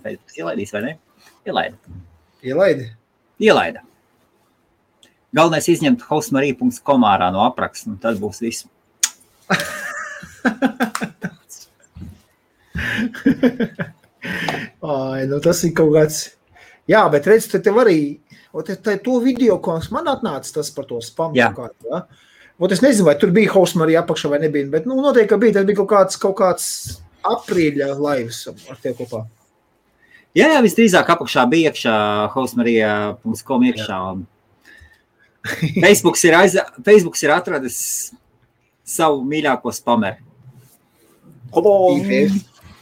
Facebook ielaidīs, vai ne? Ielaida. Galvenais izņemt hostmarija.com ārā no apraksta, un tad būs viss. Ai, nu tas ir kaut kāds... Jā, bet redz, tev arī... To video, ko man atnāca tas par to spamu. Jā. Ja? Es nezinu, vai tur bija hostmarija apakšā vai nebija, bet noteikti, ka bija. Tas bija kaut kāds aprīļa laivas ar tev kopā. Jā, visdrīzāk apakšā bija iekšā hostmarija.com iekšā. Facebooks ir atradis savu mīļāko spameru.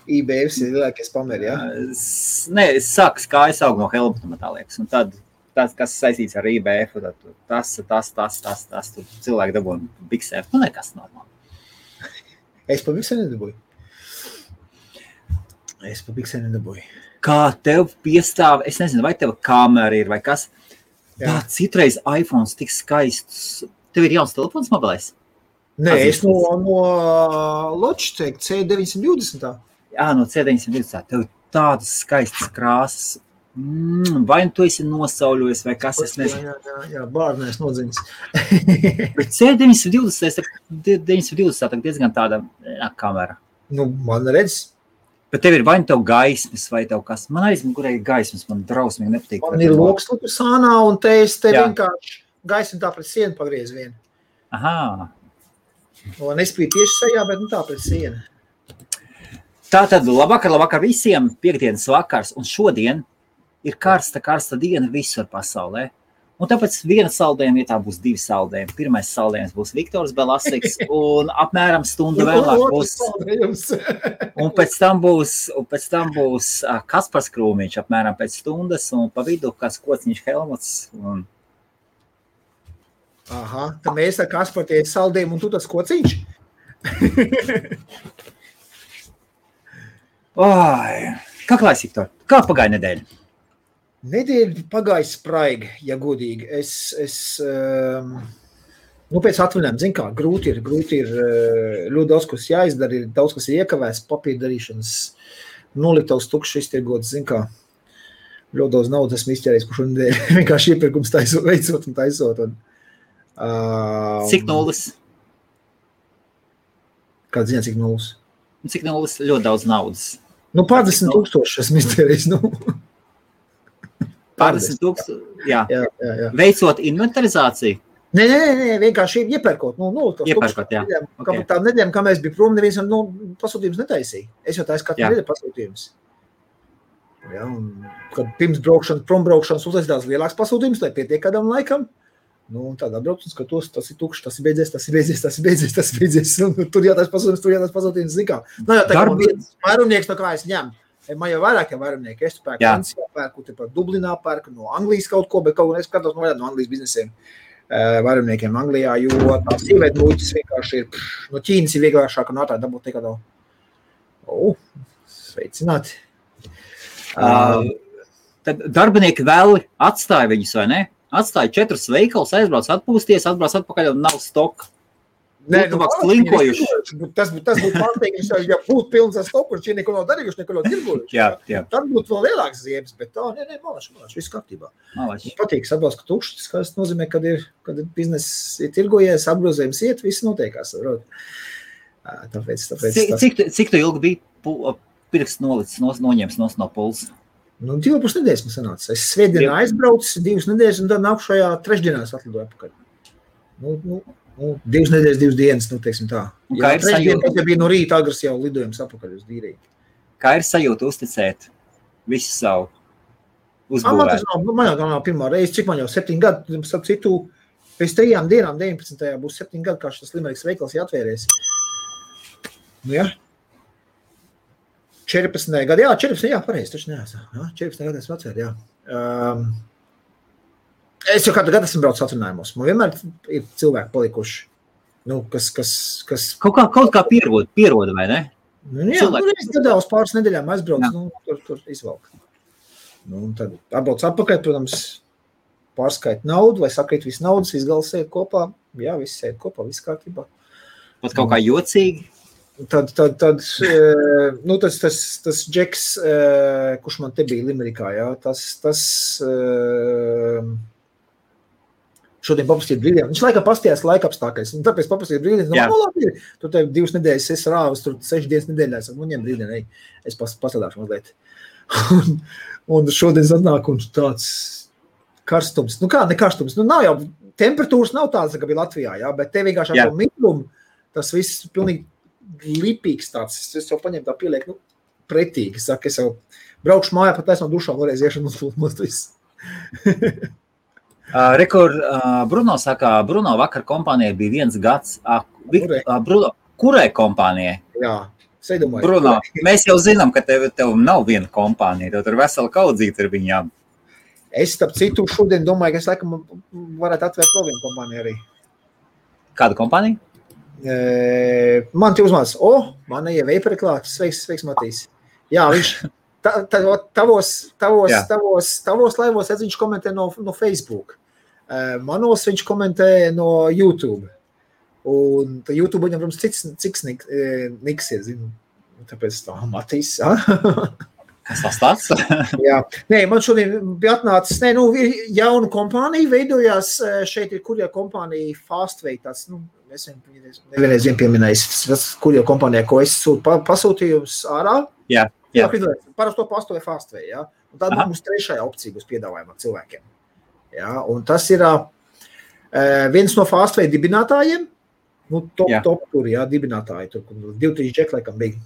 IBF ir lielākie spameri, jā? Nē, es sāku kājas aug no Helmuta, tā liekas. Un tad tas, kas saistīts ar IBF, tas cilvēki dabūja biksēt. Nekas normāli. Es pa biksē nedabūju. Kā tev piestāv, es nezinu, vai tev kamera ir vai kas. Tā citreiz iPhones tik skaists. Tev ir jauns telefons mobilais? Nē, es no Logitech C920. Jā, no C920. Tev tādas skaistas krāsas. Vai tu esi nosauļojis vai kas, es nezinu. Jā, bārnēs nodziņas. Bet C920 diezgan tāda kamera. Man redz. Bet tev ir vai tev gaismas vai tev kas. Man aizmugurē ir gaismas, man drausmīgi nepatīk. Man ir loks sānā un te vienkārši gaismu tā pret sienu pagriez vienu. Aha. Un nespīd tieši sajā, bet tā pret sienu. Tātad labvakar visiem, piekdienas vakars, un šodien ir karsta diena visur pasaulē. Un tāpēc viena saldējuma vietā būs 2 saldējumi. Pirmais saldējums būs Viktors Belasiks, un apmēram stundu vēlāk būs. Un pēc tam būs Kaspars Krūmiņš apmēram pēc stundas, un pa vidu kāds Kociņš Helmuts. Un... Aha, tad mēs ar Kasparu tie saldējumi, un tu tas Kociņš? Kā klājas, Viktor? Kā pagāja nedēļa? Nedēļa pagāja spraigi, ja godīgi. Pēc atvaļinājuma, zin kā, grūti ir ļoti daudz, kas jāizdara, ir daudz, kas ir iekavēs, papīra darīšanas, noliktavs tukšs iztirgots, zin kā, ļoti daudz naudas esmu izķērējis, kurš nedēļa vienkārši iepirkums veicot un taisot. Cik nulles? Kāda ziņā, cik nulles? Cik nulles? Ļoti daudz naudas. 50,000 esmu izķērējis, Pārdesmit tūkstoši, jā. Veicot inventarizāciju? Nē, vienkārši iepērkot. Iepērkot, jā. Tā nedēļa, kā mēs bija prom, neviens pasūtījums netaisīja. Es jau taisu katru nedēļu pasūtījums. Ja, kad pirms prombraukšanas uzlaidās lielāks pasūtījums, lai pietiek kādam laikam, tad atbrauc un skatos, tas ir tukšs, tas ir beidzies. Tur jātais pasūtījums, zin kā. Jā, tā kā vairumnieks, no kā es ņemu. Man jau vairāk vairumnieki, es pērku Francijā, pērku par Dublinā, pērku no Anglijas kaut ko, bet kaut ko es skatos no Anglijas biznesiem vairumniekiem Anglijā, jo tā sīvēt muļķis vienkārši ir, no Ķīnas ir vieglāšāk un ātrāk dabūt nekā sveicināti. Tad darbinieki vēl atstāja viņus, vai ne? Atstāja 4 veikalus, aizbrauc atpūsties, atbrauc atpakaļ un nav stoka. Slinkojuši. Tas būtu pārsteigums, ja būtu pilns ar stoku, un šie neko nav darījuši, neko nav tirgojuši. Jā. Tad būtu vēl lielāks ziebes, bet malaši, viss kārtībā. Patīk, atbalst, ka tukšs, tas nozīmē, kad bizness ir tirgojies, apgrozējums iet, viss notiekās. Tāpēc Cik tu ilgi bija pirksts nolicis, noņems no pulsa? 2,5 nedēļas man sanāca. Es svētdienā aizbraucu, 2 nedēļas, un tad nākušajā trešdienās atlidoju apakaļ. 2 nedēļas, 2 dienas, teiksim tā. Kā ir sajūta? Ja bija no rīta agras jau lidojums apakaļ uz Dīriju. Kā ir sajūta uzticēt visu savu uzbūvēt? Man jau nav pirmā reize, cik man jau 7 gadu, starp citu, pēc 3 dienām, 19. būs 7 gadu, kā šis Limerikas veikals jāatvērēs. 14. gadu, 14. pareizi, taču neesmu. 14. gadu esmu atvēr, Es jau kādu gadu esmu braucis atvinājumos. Man vienmēr ir cilvēki palikuši, kas... Kaut kā pieroda, vai ne? Es gadā uz pāris nedēļām aizbraucu, tur izvalku. Tad atbrauc atpakaļ, protams, pārskait naudu, vai sakrīt visu naudas, viss gals sēd kopā. Jā, viss sēd kopā, viss kārtībā. Pat kaut kā jocīgi? Tad nu, tas Džeks, kurš man te bija Limerikā, jā, tas šodien paprastīja brīdiem. Viņš laikā pastījās laikapstākļus, un tāpēc paprastīja brīdiem. Nu, labi, tu te 2 nedēļas esi rāvis, tur 6 dienas nedēļā. Es saku, nu, ņem brīdien, ej, es pasadāšu mazliet. un šodien atnāk un tāds karstums. Nu kā, ne karstums. Nu nav jau, temperatūras nav tādas, kā bija Latvijā, jā, bet te vienkārši ar to migrumu, tas viss pilnīgi lipīgs tāds. Es jau paņēmu tā pieliek, nu, pretīgi. Es saku, es jau braukšu mājā, pat no dušām varēs iešanu un viss. Bruno saka, Bruno vakar kompānijai bija 1 gads. Bruno, kurai kompānijai? Jā, seidomāju. Bruno, mēs jau zinām, ka tev nav viena kompānija, tev tur vesela kaudzīta ar viņām. Es, starp citu, šodien domāju, ka es laikam varētu atvērt vēl vienu kompāniju arī. Kādu kompāniju? Man te uzmāc, man jau veiperi klāt, sveiks Matīs. Jā, viņš tavos laivos viņš komentē no Facebook. Manos viņš komentē no YouTube. Un YouTube viņam, protams, cits niks ir, zinu. Tāpēc tā, Matīs. Kas tas tāds? Jā. Nē, man šodien bija atnācis, jauna kompānija veidojās, šeit ir kurjā kompānija Fastway, tāds, es nevienreiz pieminējis, tas kurjā kompānijā, ko es sūtu pasūtījums ārā. Jā. Parasti to pastoja Fastway, jā. Un tad mums 3. opcija būs piedāvājumā cilvēkiem. Jā, un tas ir viens no Fastway dibinātājiem, top tur, jā, dibinātāji, tur 2-3 džeki laikam bija.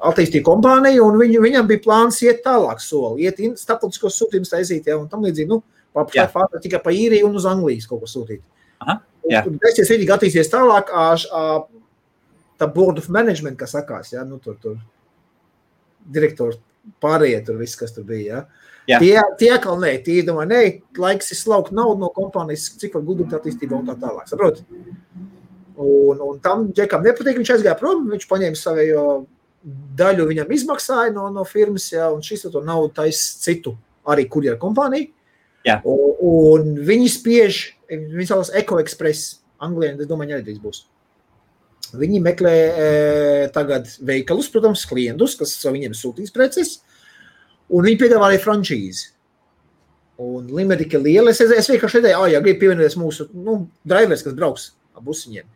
Attīstīja kompāniju, un viņam bija plāns iet tālāk soli, iet starptautiskos sūtījumus taisīt, jā, un tam līdzīgi, Fastway tikai pa Īriju un uz Anglijas kaut ko sūtīt. Un taisies viņi attīsties tālāk, tā board of management, kas sakās, jā, tur direktori pārējie tur viss, kas tur bija, jā. Tie atkal tie domā, laiks ir slaukt naudu no kompānijas, cik var guldīt attīstībā un tā tālāk, saprot? Un tam džekam nepatīk, viņš aizgāja prom, viņš paņēma savējo daļu viņam izmaksāja no firmas, jā, un šis to naudu tais citu, arī kurjera kompāniju. Jā. Un viņi spiež, viņi saucās Eco Express, Anglijā, es domāju, arī drīz būs. Viņi meklē tagad veikalus, protams, klientus, kas viņiem sūtīs preces, un viņi piedāvā arī frančīzi. Un Limerika liela, es vienkārši redzēju, grib pievienoties mūsu, drivers, kas brauks ap busiņiem.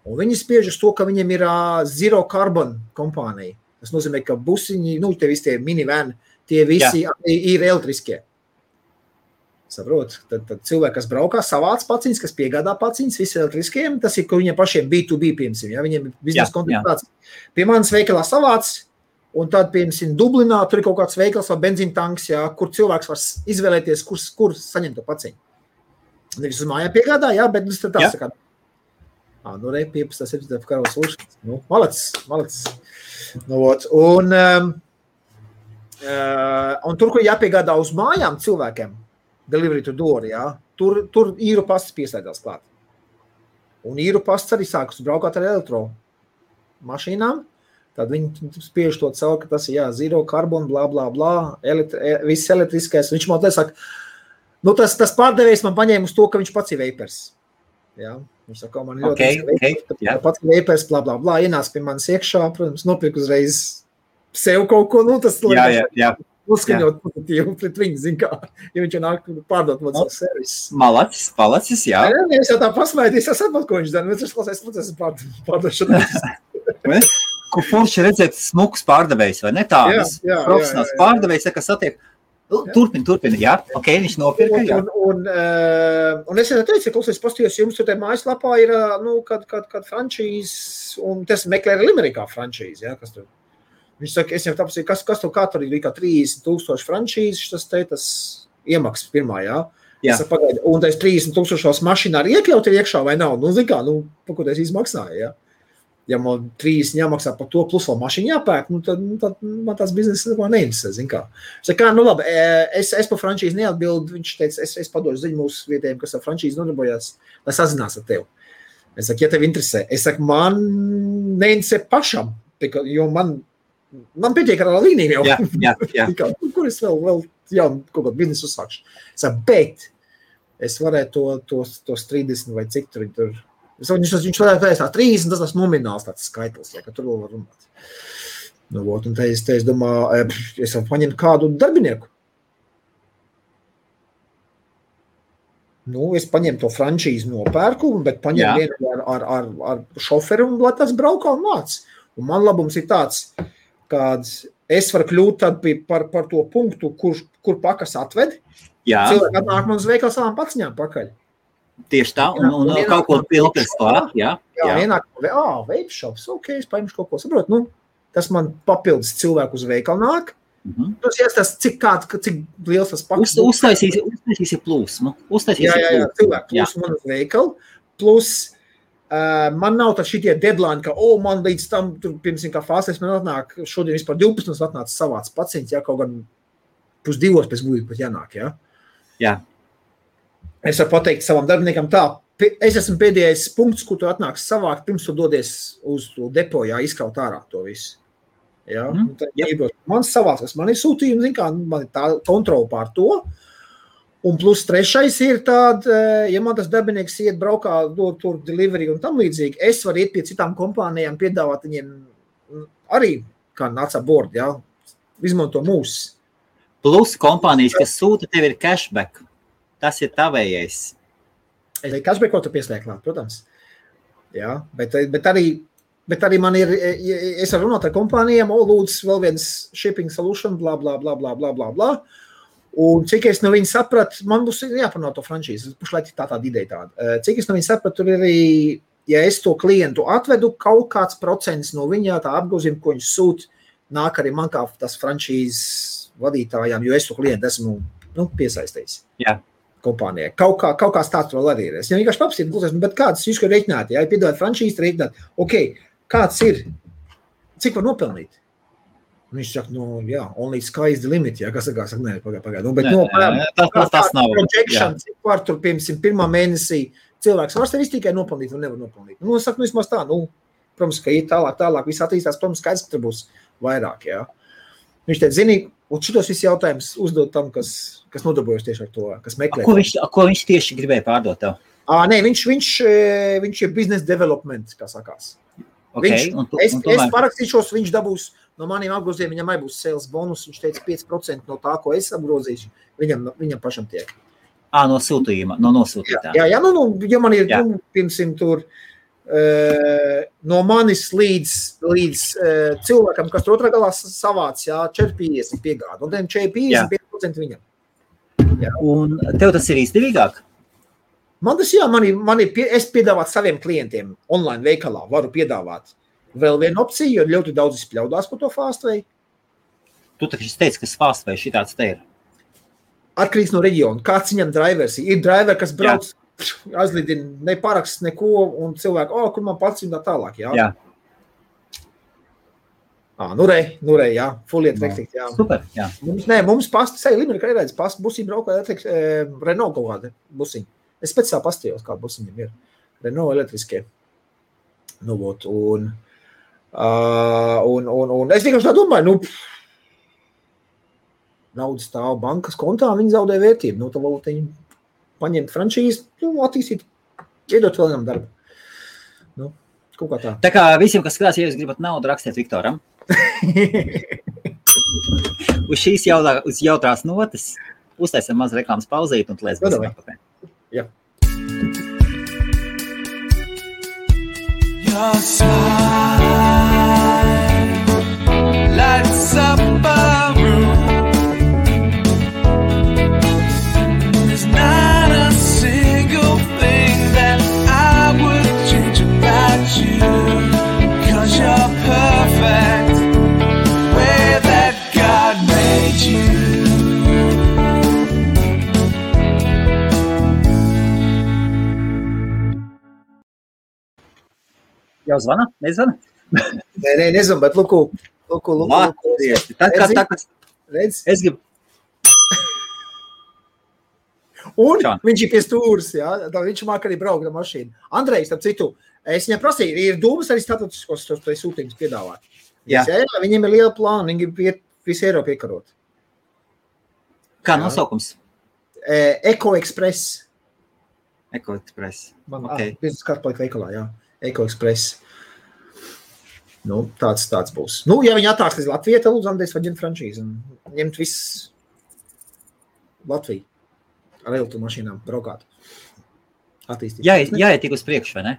Un viņi spiež uz to, ka viņiem ir zero carbon kompānija. Tas nozīmē, ka busiņi, te visi tie minivan, tie visi ir elektriskie. Saprot, tad cilvēki, kas braukā, savāc paciņas, kas piegādā paciņas, visi elektriskiem, tas ir, ka viņiem pašiem B2B, piemēram, ja, viņiem ir biznesa kontakts. Pie manas veikalā savāc, un tad, piemēram, Dublinā, tur ir kaut kāds veikals vai benzīntanks, ja, kur cilvēks var izvēlēties, kur saņemt to paciņu. Nevis uz mājā piegādā, jā, bet tā sakā. 15. karos lūšanas. Malacis. Un tur, kur jāpiegādā uz mājām cilvēkiem, delivery to door, jā, tur īru pasts pieslēdzās klāt. Un īru pasts arī sākas braukāt ar elektro mašīnām, tad viņi spiež to caur, ka tas ir, zero carbon, blā, blā, blā, viss elektriskais. Viņš man te saka, tas pārdevējs man paņēma uz to, ka viņš pats ir vapers. Jā, viņš saka, man ļoti pats ir vapers, blā, blā, blā, ienāc pie manis iekšā, protams, nopirk uzreiz sev kaut ko, tas uzskaņot pozitīvu pret viņu, zin kā, ja viņš jau nāk pārdot man savu servisu. Malacis, jā. Es jau tā pasmēties, es saprotu, ko viņš dara, bet es klausies procesu pārdošanā. Ko forši redzēt smuks pārdevējs, vai ne tādas? Profesionāls pārdevējs, kas satiek. Turpin, jā, viņš nopirka, jā. Un es jau teicu, klausies, pastījos, jums tur te mājaslapā ir, kad frančīz, un tas meklē arī Limerikā frančīz, jā, kas tur. Viņš saka, es jau tāpēc, kas tur kā tur ir kā 30,000 frančīzes, tas iemaksas pirmā, jā. Es pagaidu, un tas 30,000 mašīnā arī iekļaut ir iekšā vai nav? Pa ko tas izmaksāja, jā. Ja man 30 jāmaksā par to, plus vēl mašīnu jāpērk, tad man tās biznesa neinteresē, zin kā. Es saku, labi, es par frančīzi neatbildu, viņš teica, es padošu ziņu mūsu vietējiem, kas ar frančīzi nodarbojās, lai sazinās ar tevi. Es saku, ja tev interesē, man neinteresē pašam, jo man pietiek ar līniju jau. Jā. Kur es vēl kaut kādu biznesu uzsākšu. Es saku, bet es varētu to 30 vai cik tur Viņš varētu teikt tā 30, tas nomināls tāds skaitlis, ja, ka tur vēl var runāt. Nu, un te es domāju, es varu paņemt kādu darbinieku. Nu, es paņemu to frančīzi nopērku, bet paņemu vienu ar šoferu un lai tas braukā un māc. Un man labums ir tāds, kad es varu kļūt tad par to punktu, kur pakas atved. Cilvēki atnāk man uz veikalu savām paciņām pakaļ. Tieši tā, un kaut ko pilpēs klāt, jā. Ienāk, vape shops, ok, es paņemšu kaut ko, saprot, nu, tas man papildus cilvēku uz veikalu nāk. Tas jāstāst, cik liels tas pakas. Uztaisīsi plūsmu. Jā, cilvēku plūsmu man uz veikalu. Plus, man nav tā šitie deadline, ka, man līdz tam, tur, pirms kā fāsēs, man atnāk, šodien vispār 12 mums atnāca savāds pacients, jā, kaut gan 1:30 pēc būtības pat jānāk, jā. Jā. Es varu pateikt savam darbiniekam tā, es esmu pēdējais punkts, kur tu atnāks savākt, pirms tu dodies uz to depo, jā, izkaut ārā to visu. Ja? Man savāks, man ir sūtījumi, zin kā, man ir tā kontrola pār to. Un plus trešais ir tāda, ja man tas darbinieks iet braukā, dod tur delivery un tam līdzīgi, es varu iet pie citām kompānijām, piedāvāt viņiem arī, kā nāca board, ja? Izmanto mūs. Plus kompānijas, kas sūta, tev ir cashback. Tas ir tavējais. Cashback, ko tu pieslēgt, protams. Ja? Bet arī man ir, es varu runāt ar kompānijām, lūdzu vēl viens shipping solution, bla, bla, bla, bla, bla, bla, bla. Un cik es no viņa sapratu, man būs jāpanāk to franšīzi, pušlaik tāda ideja tāda. Cik es no viņa sapratu, tur ir arī, ja es to klientu atvedu, kaut kāds procents no viņa tā apgrozījuma, ko viņš sūt, nāk arī man kā tas franšīzes vadītājām, jo es to klientu esmu piesaistījis. Jā. Kompānijai. Kaut kā tāds vēl arī ir. Es jau vienkārši papstīju, bet kāds jūs kā reiķināt, ja piedāvāt franšīzi, reiķināt, ok, kāds ir, cik var nopelnīt? Un viņš saka, only sky is the limit, ja, kas saka, pagāj. Bet tas nav. Projection, cik var tur, piemēram, pirmā mēnesī cilvēks var sevi tikai nopelnīt un nevar nopelnīt. Nu, es saku, vismaz tā, protams, ka ir tālāk, viss attīstās, protams, skaidrs, ka tur būs vairāk, jā. Viņš teica, zini, un šitos visi jautājums uzdot tam, kas nodarbojas tieši ar to, kas meklē. Ko viņš tieši gribēja pārdot tev? Nē, viņš ir business development, kā sakās. Okay, es parakstīšos, viņš dabūs no maniem apgrozījumiem, viņam arī būs sales bonus, viņš teica 5% no tā, ko es apgrozīšu, viņam pašam tiek. No sūtījuma, no nosūtītā. Jā, ja man ir, piemēram, tur no manis līdz cilvēkam, kas tur otrā galā savāc, 4,50 piegāda, un 4,55% viņam. Jā. Un tev tas ir izdevīgāk? Man tas, es piedāvāt saviem klientiem online veikalā, varu piedāvāt vēl vienu opciju, jo ļoti daudz izpļaudās par to Fastway. Tu taču teici, ka Fastway šitāds te ir. Atkarīgs no reģiona. Kāds viņam drivers ir? Ir driver, kas brauc, aizlidina, neparaksts neko, un cilvēki, kur man pats un tā tālāk, jā. Nu rei, jā, fuliet vektikt, jā. Super, jā. Mums pasti, seja Limerica arī redz, pasti busiņi braukā, Renault kaut kādi busiņi. Es pēc tā pastījos, kā busiņiem ir. Renault elektriskie. Un es vienkārši tā domāju, naudas stāv bankas kontā, viņi zaudē vērtību. Tā varbūt viņi paņemt franšīzi, attīstīt, iedot vēl vienam darbu. Kaut kā tā. Tā kā visiem, kas skatās, ja jūs gribat naudu, rakstiet Viktoram. Uz šīs jautrās notas uztaisim maz reklāmas pauzīt un lēs būsim atpakaļ. Jā. Your smile lights up a room. There's not a single thing that I would change about you, 'cause you're perfect the way that God made you. Jau zvana? Nezvana? Nē, nezvana, bet lūku. Redz? Es gribu. Un viņš ir pie stūras, jā, viņš māk arī braukt ar mašīnu. Andrejs, starp citu, es viņam prasīju, ir dūmas arī statusiskos sūtījumus piedāvāt. Jā, viņiem ir liela plāna, viņi grib visu Eiropu iekarot. Kā nosaukums? Eko Express. Eko Express. Man, Okay. Biznesa karta paliek veikalā, jā. Eko Express. Nu, tāds būs. Nu, ja viņi attāks līdz Latvijai, tad lūdzu Andrejs vai ģemt franšīzi un ņemt viss Latviju ar elektromašīnām braukāt. Attīstīt. Jāiet tik uz priekšu, vai ne?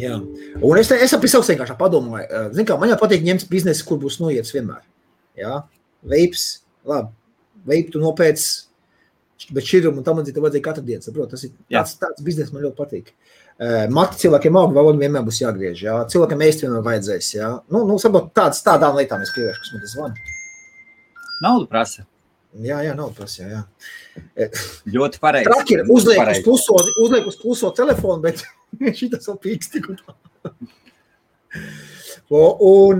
Jā. Un es aprisauks vienkārši padomāju. Zin kā, man jau patīk ņemt biznesi, kur būs noiets vienmēr. Jā. Veips, labi. Veipu tu nopēc, bet šķirumu un tam tev vajadzēja katru dienu, saprot? Tas ir tāds biznesi, man ļoti patīk. Mati cilvēkiem auga valodu vienmēr būs jāgriež, jā. Cilvēkiem ēst vienmēr vajadzēs, jā. Nu saprot, tādām lietām es pievēršu, kas man tas zvana. Naudu prasa. Jā, naudu prasa, jā. Ļoti pareizi. Traki ir, uzliek uz kluso telefonu, bet šitas vēl pīkst tik un tā. Un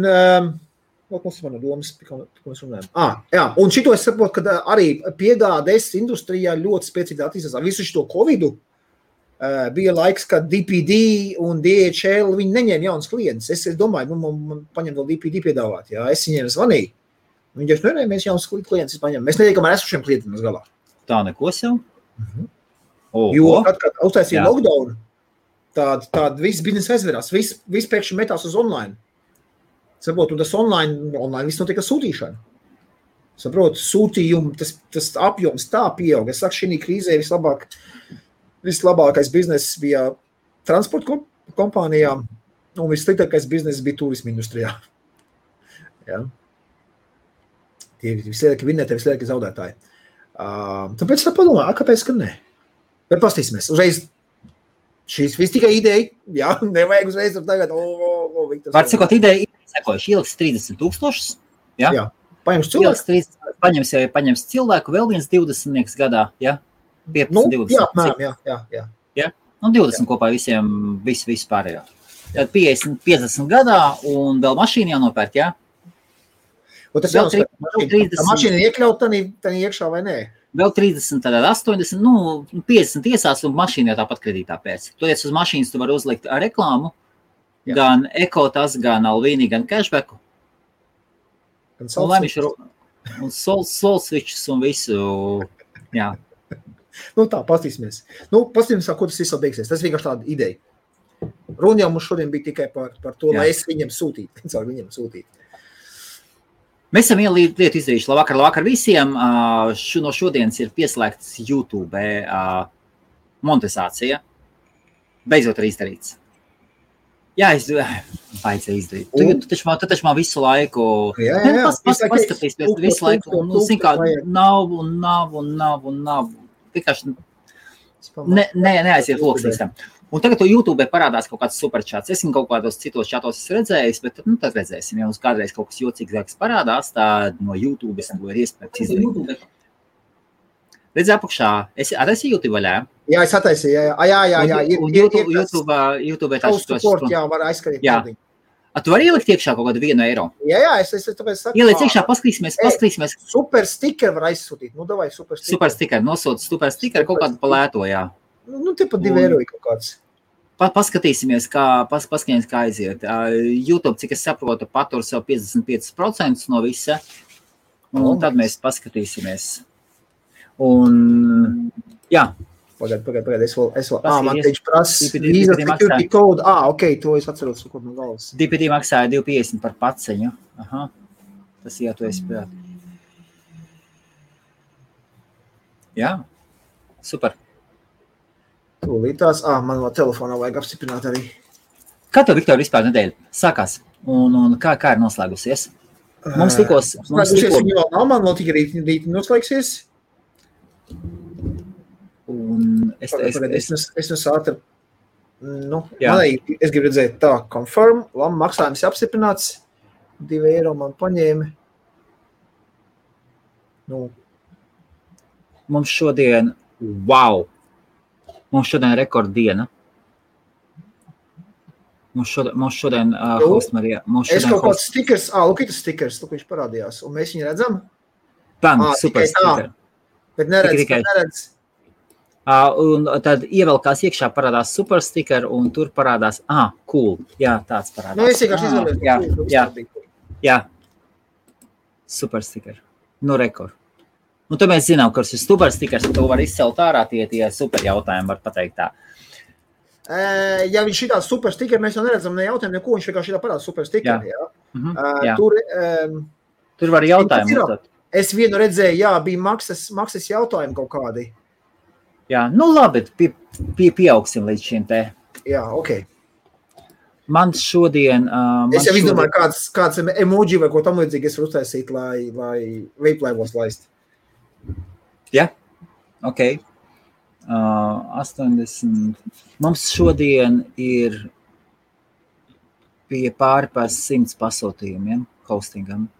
mums ir domas, ko mēs runājam. Jā, un šito es saprotu, ka arī piegādes industrijā ļoti spēcīgi attīstās. Visu šito Covidu bija laiks, kad DPD un DHL viņi neņēma jaunas klientus. Es domāju, man paņem vēl DPD piedāvāt. Jā, es viņiem zvanīju. Viņi jau mēs jaunas klientus paņemam. Mēs netiekam ar esošiem klientiem uz galā. Tā neko sev? Jo, kad uztaisīja lockdown, tāda viss biznesa aizverās. Viss pēkšņi metās uz online. Saprot, un tas online viss notiek ar sūtīšanu. Saprot, sūtījumu, tas apjoms tā pieaug. Es saku, šī krīzē vislabākais bizness bija transporta kompānijām, un vissliktākais bizness bija turisma industrijā. Ja? Tie vislielākie vinnētāji, vislielākie zaudētāji. Tāpēc tā padomā, kāpēc, ka ne? Bet pastīsimies. Uzreiz šīs viss tikai ideja, jā, nevajag uzreiz tagad. Var sakot, ideja sekojuši, ieliks 30,000, jā. Paņems cilvēku. Paņems cilvēku, vēl viens 20 gadā, jā. 15, 20. Jā. Un 20 kopā visiem, visu pārējā. Tad 50 gadā un vēl mašīnu jānopērt, jā? Un tas jau mašīna iekļaut tā iekšā vai nē? Vēl 30, tad 80, 50 iesās un mašīna jau tāpat kredītā pēc. Toties uz mašīnas tu vari uzlikt reklāmu, gan ekotas, gan Alvīni, gan cashbacku. Un solsvičus un visu, jā. Tā, pastīsimies. Pastīsimies, ko tas viss beigsies. Tas vienkārši tāda ideja. Runa jau mums šodien bija tikai par to, lai es viņiem sūtītu. Mēs esam vienu lietu izdarījuši. Labvakar visiem. No šodienas ir pieslēgts YouTube monetizācija. Beidzot ir izdarīts. Jā, vajadzēja izdarīt. Tu taču man visu laiku... Jā. Paskatīsimies visu laiku. Nav. Vienkārši neaiziet loksnīstam. Un tagad to YouTube parādās kaut kāds superčāts. Es kaut kādos citos čatos esmu redzējis, bet tad redzēsim. Ja mums kādreiz kaut kas jocīgāks parādās, tad no YouTube es to ir iespējams izdarīt. Redz apakšā. Es attaisīju YouTube vaļā? Jā, es attaisīju. Jā. YouTube jā, var aizskarīt. Jā. Tu vari ielikt iekšā kaut kādu 1 eiro? Jā, es tāpēc saku. Ieliec iekšā, paskatīsimies. Super sticker var aizsūtīt. Davai super sticker. Super sticker, nosūta super sticker kaut kādu palēto, jā. Te pat 2 eiro kaut kāds. Paskatīsimies, kā aiziet. YouTube, cik es saprotu, patur sev 55% no visa. Un tad mēs paskatīsimies. Un, jā. Pagaid, es vēl, man teicu prasa Visa Security Code, ok, to es atceros, ko no galvas. DPD maksāja 2,50 par paceņu, tas jā, to es prāt. Jā, super. Tūlītās, man vēl telefonā vajag apstiprināt arī. Kā tev, Viktor, vispār nedēļa sākās, un kā ir noslēgusies? Mums tikos... Viņa vēl nav, man vēl tikai rīt noslēgsies. Un es ātri, es gribu redzēt tā, confirm, maksājums apstiprināts, 2 eiro man paņēma. Mums šodien rekorddiena. Mums šodien Hostmarija. Es kaut kāds stickers, lūk, stickers, viņš parādījās, un mēs viņu redzam. Super sticker. Bet neredz. Un tad ievelkās iekšā parādās super sticker, un tur parādās, cool, jā, tāds parādās. Es vienkārši izvēlēju. Jā, super sticker. Rekord. Un tad mēs zinām, ka tas ir super stikers, un to var izcelt ārā tie super jautājumi, var pateikt tā. Ja viņš šitā super stikeri, mēs jau neredzam ne jautājumu, neko, viņš vienkārši šitā parāda super stikeri, jā. Jā. Tur var jautājumu. Es vienu redzēju, jā, bija maksas jautājumi kaut kādi. Jā, nu labi, pieaugsim līdz šim te. Jā, ok. Man šodien... Es jau izdomāju, kāds emoji vai ko tam līdzīgi es varu uztaisīt, lai vape laivos laist. Jā, ok. 80. Mums šodien ir pie pāri par 100 pasūtījumiem hostingam.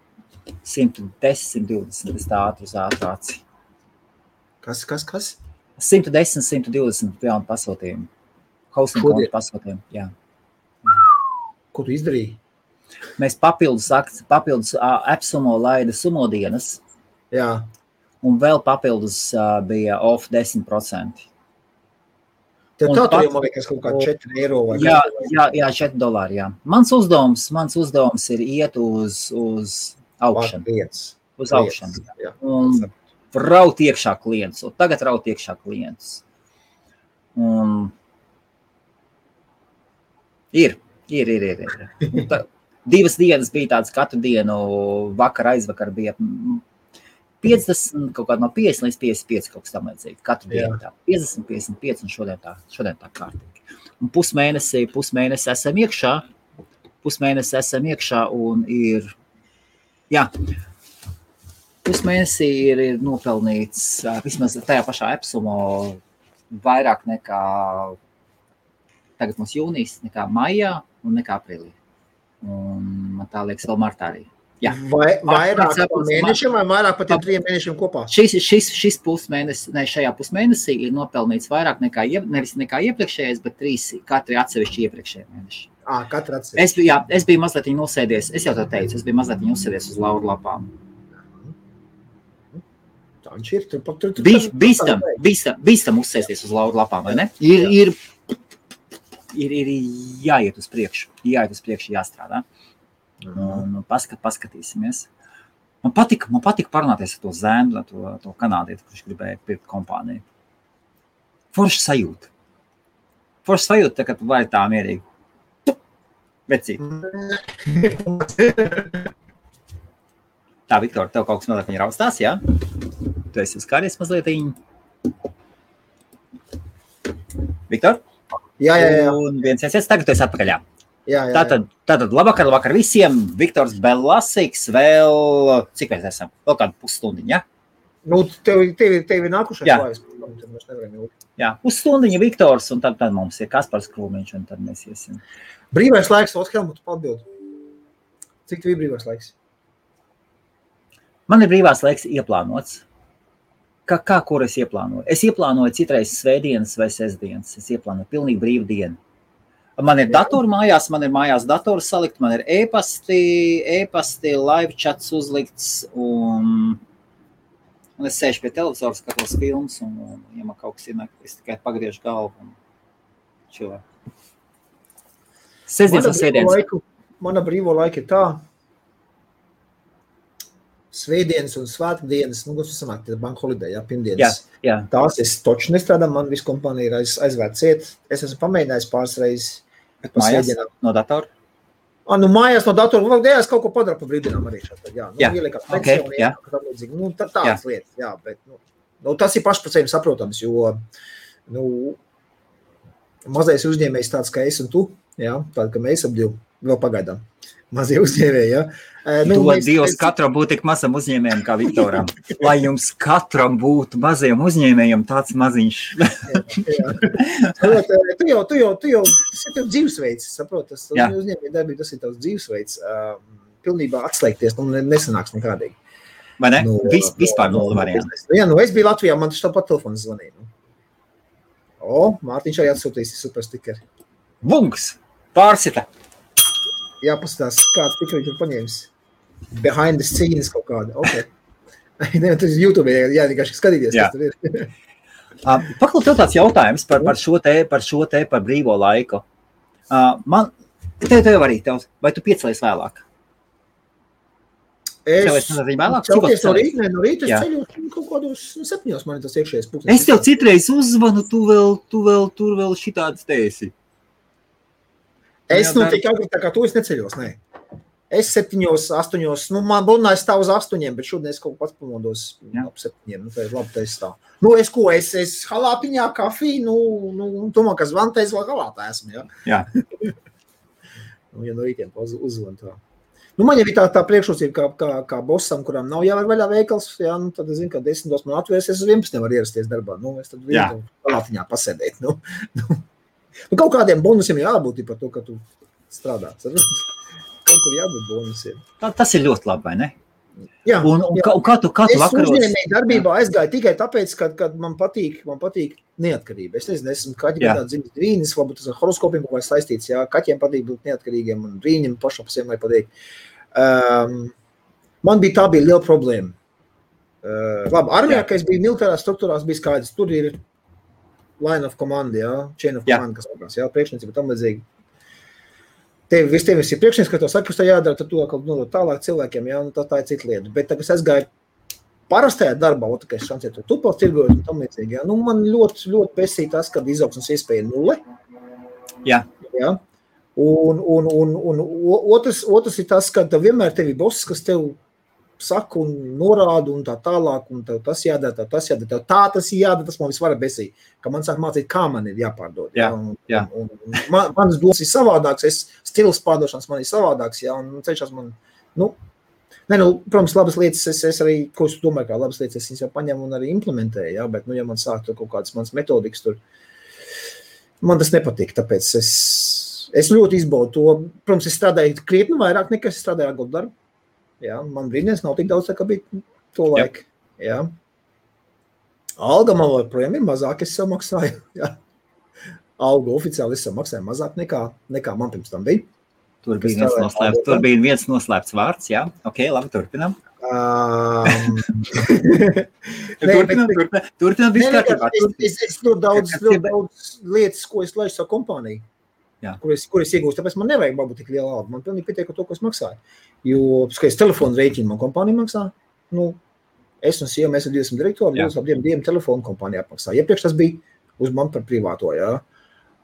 110, 120, es tā ātri uz ātrāci. Kas? 110, 120 jaunu pasūtījumu. Hosting kontu pasūtījumu, jā. Ko tu izdarīji? Mēs papildus AppSumo laida sumo dienas. Jā. Un vēl papildus bija off 10%. Tev tā tur jau man liekas kaut kā 4 eiro vai jā, $4, jā. Mans uzdevums ir iet uz augšanu. Uz augšanu. Un raut iekšā klientus. Un tagad raut iekšā klientus. Un ir. Divas dienas bija tāds, katru dienu aizvakar bija 50, kaut kādā no 50 līdz 55 kaut kas tam līdzīgi. Katru dienu tā. 50, 55 un šodien tā kārtīgi. Un pusmēnesi esam iekšā un ir, jā, pusmēnesi ir nopelnīts vismaz tajā pašā AppSumo vairāk nekā tagad mums jūnijas, nekā maijā un nekā aprīlī. Un man tā liekas vēl martā arī. Jā. Vairāk par mēnešiem vai vairāk par tiem 3 mēnešiem kopā? Šis pusmēnesis, šajā pusmēnesī ir nopelnīts vairāk nevis nekā iepriekšējais, bet 3 katri atsevišķi iepriekšējie mēneši. Katru atsevišķi. Es biju mazliet nosēdies, es jau to teicu, es biju mazliet uzsēdies uz lauru lapām. Tā viņš ir. Bīstam uzsēsties uz lauru lapām, vai ne? Ir jāiet uz priekšu, jāstrādā. Un paskatīsimies. Man patika parunāties ar to zēnu, to kanādieti, kurš gribēja pirkt kompāniju. Forša sajūta. Tā, ka tu vari tā mierīgi. Vecīt. Tā, Viktor, tev kaut kas mazliet viņa raustās, jā? Tu esi uzkāries mazlietiņ. Viktor? Jā. Un viens, tagad tu esi atpakaļ, jā. Jā. Tātad labvakar visiem. Viktors Belasīgs vēl, cik mēs esam? Vēl kādu pusstundiņu, ja? Nu, tev ir nākušais vājas. Jā, pusstundiņu Viktors, un tad mums ir Kaspars Krūmiņš, un tad mēs iesim. Brīvais laiks, Helmutu atbild. Cik tev ir brīvais laiks? Man ir brīvās laiks ieplānots. Kā kur es ieplānoju? Es ieplānoju citreiz svētdienas vai sestdienas. Es ieplānoju pilnīgi brīvu dienu. Man ir datori mājās, man ir mājās dators salikt, man ir e-pasti, live chats uzlikts, un es sēžu pie televizora, skatos filmas, un ja man kaut kas ir, es tikai pagriežu galvu un čilē. Sestdienas un svētdienas. Mana brīvo laika ir tā. Svētdienas un svētdienas, kas sanāk, tie bank holiday, pirmdienas. Jā. Tās es toči nestrādāju, man visu kompānija ir aizvērts iet. Es esmu pamēģinājis pāris reizes. Mājās no datora? Mājās no datora. Es kaut ko padaru pa brīvdienām arī šeit. Ieliekās pensionī, tādas lietas. Jā, bet tas ir paši par sevi saprotams, jo mazais uzņēmējs tāds kā es un tu, tāda, ka mēs ap divu vēl pagaidām. Mazie uzņēmēji, ja? Dievs katram būtu tik mazam uzņēmējam kā Viktoram. Lai jums katram būtu mazajam uzņēmējam tāds maziņš. Tu jau tas ir tev dzīvesveids, saprot? Tas uzņēmēja darbība, tas ir tavs dzīvesveids. Pilnībā atslēgties, nesanāks nekādīgi. Vai ne? Vispār nulli varianti. Jā, es biju Latvijā, man taču tāpat telefons zvanīja. Mārtiņš arī atsūtīs super stikeri. Bungs! Pārsita! Jā, paskatās, kāds tikri tur paņēmis. Behind the scenes kaut kāda. Ok. Tas ir YouTube, vienkārši skatīties, kas tur ir. Paklau, tev tāds jautājums par brīvo laiku. Tev arī, vai tu piecelies vēlāk? Es celties no rīta, es ceļu kaut kādos 7 man ir tas iekšējais pulkstenis. Es tev citreiz uzvanu, tu vēl šitāds tēsi. Es tik agri, tā kā tu es neceļos, nē. Es 7, 8, man bunā es stāv uz 8, bet šodien es kaut pats pamodos ap 7, tā ir labi, tā es stāv. Es halātiņā kafiju, tomā, ka zvantēs vēl halātā esmu, jā. Jā. Ja no rītiem uzvan tā. Man jau ir tā priekšrocība, kā bosam, kurām nav jāvar vaļā veikals, jā, tad es zinu, ka 10 man atvērs, es uz 11 var ierasties darbā. Es tad vienu halātiņā pasēdēt. Kaut kādiem bonusiem jābūt par to, ka tu strādā. Kaut kur jābūt bonusiem. Tas ir ļoti labi, vai ne? Jā. Un kā tu vakaros? Es uzņēmēju darbībā aizgāju tikai tāpēc, ka man patīk neatkarība. Es nezinu, esmu kaķi gadā dzimis brīnis, varbūt tas ar horoskopiem kaut kā saistīts, jā, kaķiem patīk būt neatkarīgiem un brīņiem pašam pasiem vai patīk. Man tā bija liela problēma. Labi, armijā, ka es biju militārās struktūrās, bija skaidrs, tur ir line of command, jā, chain of command, kas sakās, jā, priekšniecība tam līdzīgi. Tev ir priekšnieks, ka to saka, kas tā jādara, tad to nodot tālāk cilvēkiem, jā, tā ir cita lieta. Bet tagad es gāju parastajā darbā, ka es šancēju to tupals tirgojot un tam līdzīgi, jā. Man ļoti, ļoti pesīja tas, kad izaugsmes iespēja 0. Jā. Jā. Un otrs ir tas, ka vienmēr tev ir boss, kas tev saka un norāda un tā tālāk, un tev tas jādara, tev tas jādara, tas man visvairāk besīja, ka man sāk mācīt, kā man ir jāpārdod. Jā. Manas domas ir savādāks, stils pārdošanas man ir savādāks, jā, un ceļšās man, protams, labas lietas, es arī, ko es domāju, kā labas lietas, es viņas jau paņemu un arī implementēju, jā, bet, ja man sāk tur kaut kādas manas metodikas tur, man tas nepatīk, tāpēc es ļoti izbaudu to, protams, es strādāju krietni vairāk, nekā es strādāju ar darbu. Jā, man brīdienas nav tik daudz, kā bija to laiku. Jā. Alga man projām ir mazāk, es sev maksāju. Jā. Alga oficiāli es sev maksāju mazāk nekā man pirms tam bija. Tur bija viens noslēpts vārds, jā. Ok, labi, turpinām. Turpinām visu kārtībā. Es ļoti daudz lietas, ko es laišu savu kompāniju. Kur es iegūstu, tāpēc man nevajag varbūt tik liela alga. Man pilnīgi pietiek ar to, ko es maksāju. Jo, skaties, telefonu rēķinu man kompānija maksā. Es un sieva, mēs ar 20 direktoru, mēs ap diviem telefonu kompānijā maksā. Iepriekš tas bija uz man par privāto, jā.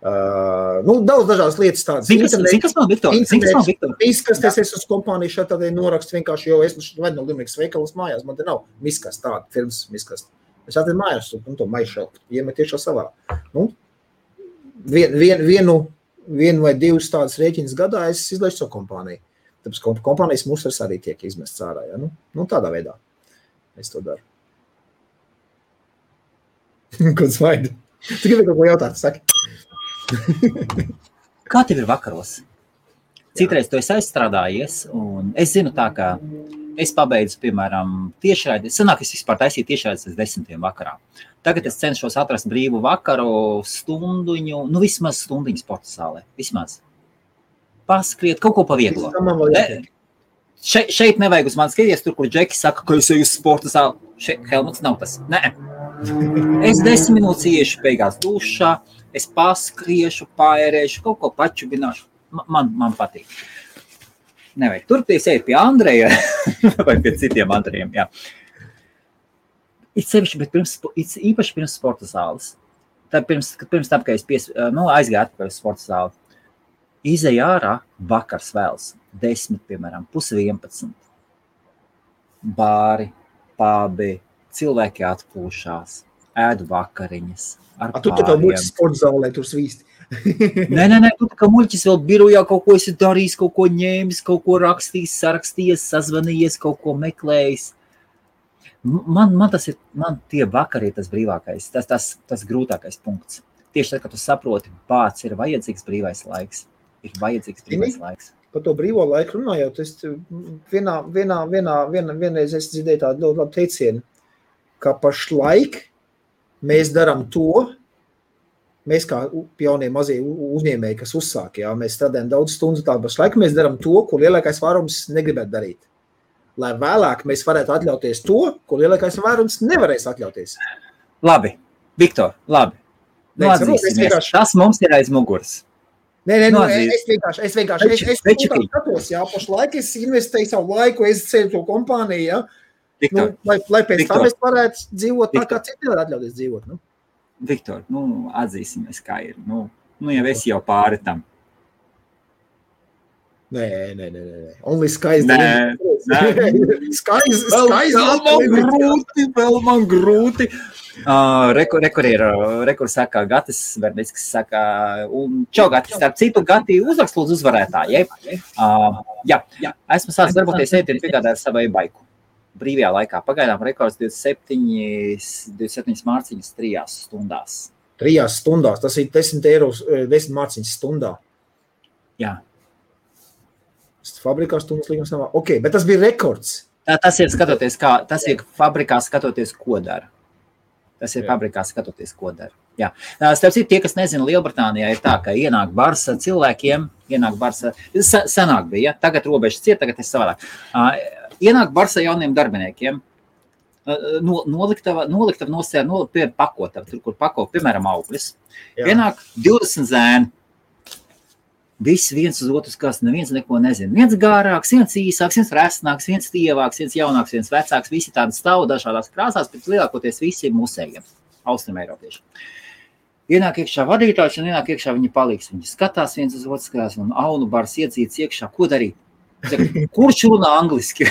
Daudz dažādas lietas tādas. Zini, kas man, Viktor? Miskasties es uz kompāniju šeit tādēļ norakstu vienkārši, jo es vadu no Limerikas veikalas mājās, man te nav miskas tāda, firmas miskas. Es atvedu mājās un to maišu iemet tiešā savā. Vienu vai divas tādas rēķinas gadā es izlaišu savu kompāniju. Tāpēc kompānijas musars arī tiek izmests ārā. Ja? Tādā veidā es to daru. Ko smaidi? Tu gribi kaut ko jautāt, saki. Kā tev ir vakaros? Citreiz tu esi aizstrādājies, un es zinu tā, ka es pabeidzu, piemēram, tiešraidi. Sanāk, es vispār taisīju tiešraidis līdz 10 vakarā. Tagad es cenšos atrast brīvu vakaru stunduņu, vismaz stundiņu sporta zālē. Vismaz. Paskriet, kaut ko pa vieglo. Šeit nevajag uz mani skaties, tur, kur Džeki saka, ka es eju uz sporta zāli. Helmuts nav tas. Nē. Es 10 minūtes iešu beigās dušā, es paskriešu, paērēšu, kaut ko pačubināšu. Man patīk. Nevajag. Turpties eju pie Andreja vai pie citiem Andrejiem, jā. Īpaši pirms sporta zāles. Pirms tam, kad es aizgāju atpakaļ uz sporta zāli. Izej ārā, vakars vēls, 10, piemēram, 10:30. Bāri, pābi, cilvēki atpūšās, ēdu vakariņas. Tu tā kā muļķis sporta zālē tur svīsti. Nē, tu tā kā muļķis vēl birojā kaut ko esi darījis, kaut ko ņēmis, kaut ko rakstījis, sarakstījies, sazvanījies, kaut ko meklējis. Man tie vakari ir tas brīvākais, tas grūtākais punkts. Tieši tad, kad tu saproti, bāc, ir vajadzīgs brīvais laiks. Par to brīvo laiku runājot, es vienreiz es dzirdēju tādu ļoti labu teicienu, ka pašlaik mēs darām to, mēs kā jaunie mazie uzņēmēji, kas uzsāk, jā, mēs strādājam daudz stundu tā, pašlaik mēs darām to, ko lielākais vairums negribētu darīt. Lai vēlāk mēs varētu atļauties to, ko lielākais vairums nevarēs atļauties. Labi, Viktor, labi. Atzīsimies, tas mums ir aiz muguras. Nē, es vienkārši skatos, jā, pašlaik es investēju savu laiku, es ceļu to kompāniju, jā, Viktor, lai pēc Viktor. tam es varētu dzīvot tā, Viktor. kā citi var atļauties dzīvot. Nu? Viktor, atzīsimies, kā ir. Jau esi jau pāri tam. Nē. Only skies. Nē. Skies. Vēl man grūti. Rekur saka, Gatis Vernickis saka, un čau, Gatis, starp citu, Gati uzrakst lūdzu uzvarētāji. Jā, esmu sācis darboties ētienu piegādāt savai baiku. Brīvajā laikā. Pagaidām rekords 27 mārciņas 3 stundās. 3 stundās, tas ir 10 euros, 10 mārciņas stundā. Jā. Fabrikā stundas līgums nav. Ok, bet tas bija rekords. Tas ir fabrikā skatoties, ko dara. Fabrikā skatoties, ko dara. Jā. Starp citu, tie, kas nezina, Lielbritānijā ir tā, ka ienāk bars cilvēkiem, senāk bija, ja? Tagad robežas ciet, tagad ir savādāk. Ienāk bars jauniem darbiniekiem, noliktava nosēja, pakotava, tur, kur pako, piemēram, augļus. Ienāk 20 zēni. Visi viens uz otru skās, neviens neko nezina. Viens gārāks, viens īsāks, viens resnāks, viens tievāks, viens jaunāks, viens vecāks. Visi tādi stāv dažādās krāsās, bet lielākoties visi ir musējiem, austrum eiropieši. Ienāk iekšā vadītājs un ienāk iekšā viņa palīgs. Viņi skatās viens uz otru skās un aunu bars iedzīts iekšā. Ko darīt? Kurš runā angliski?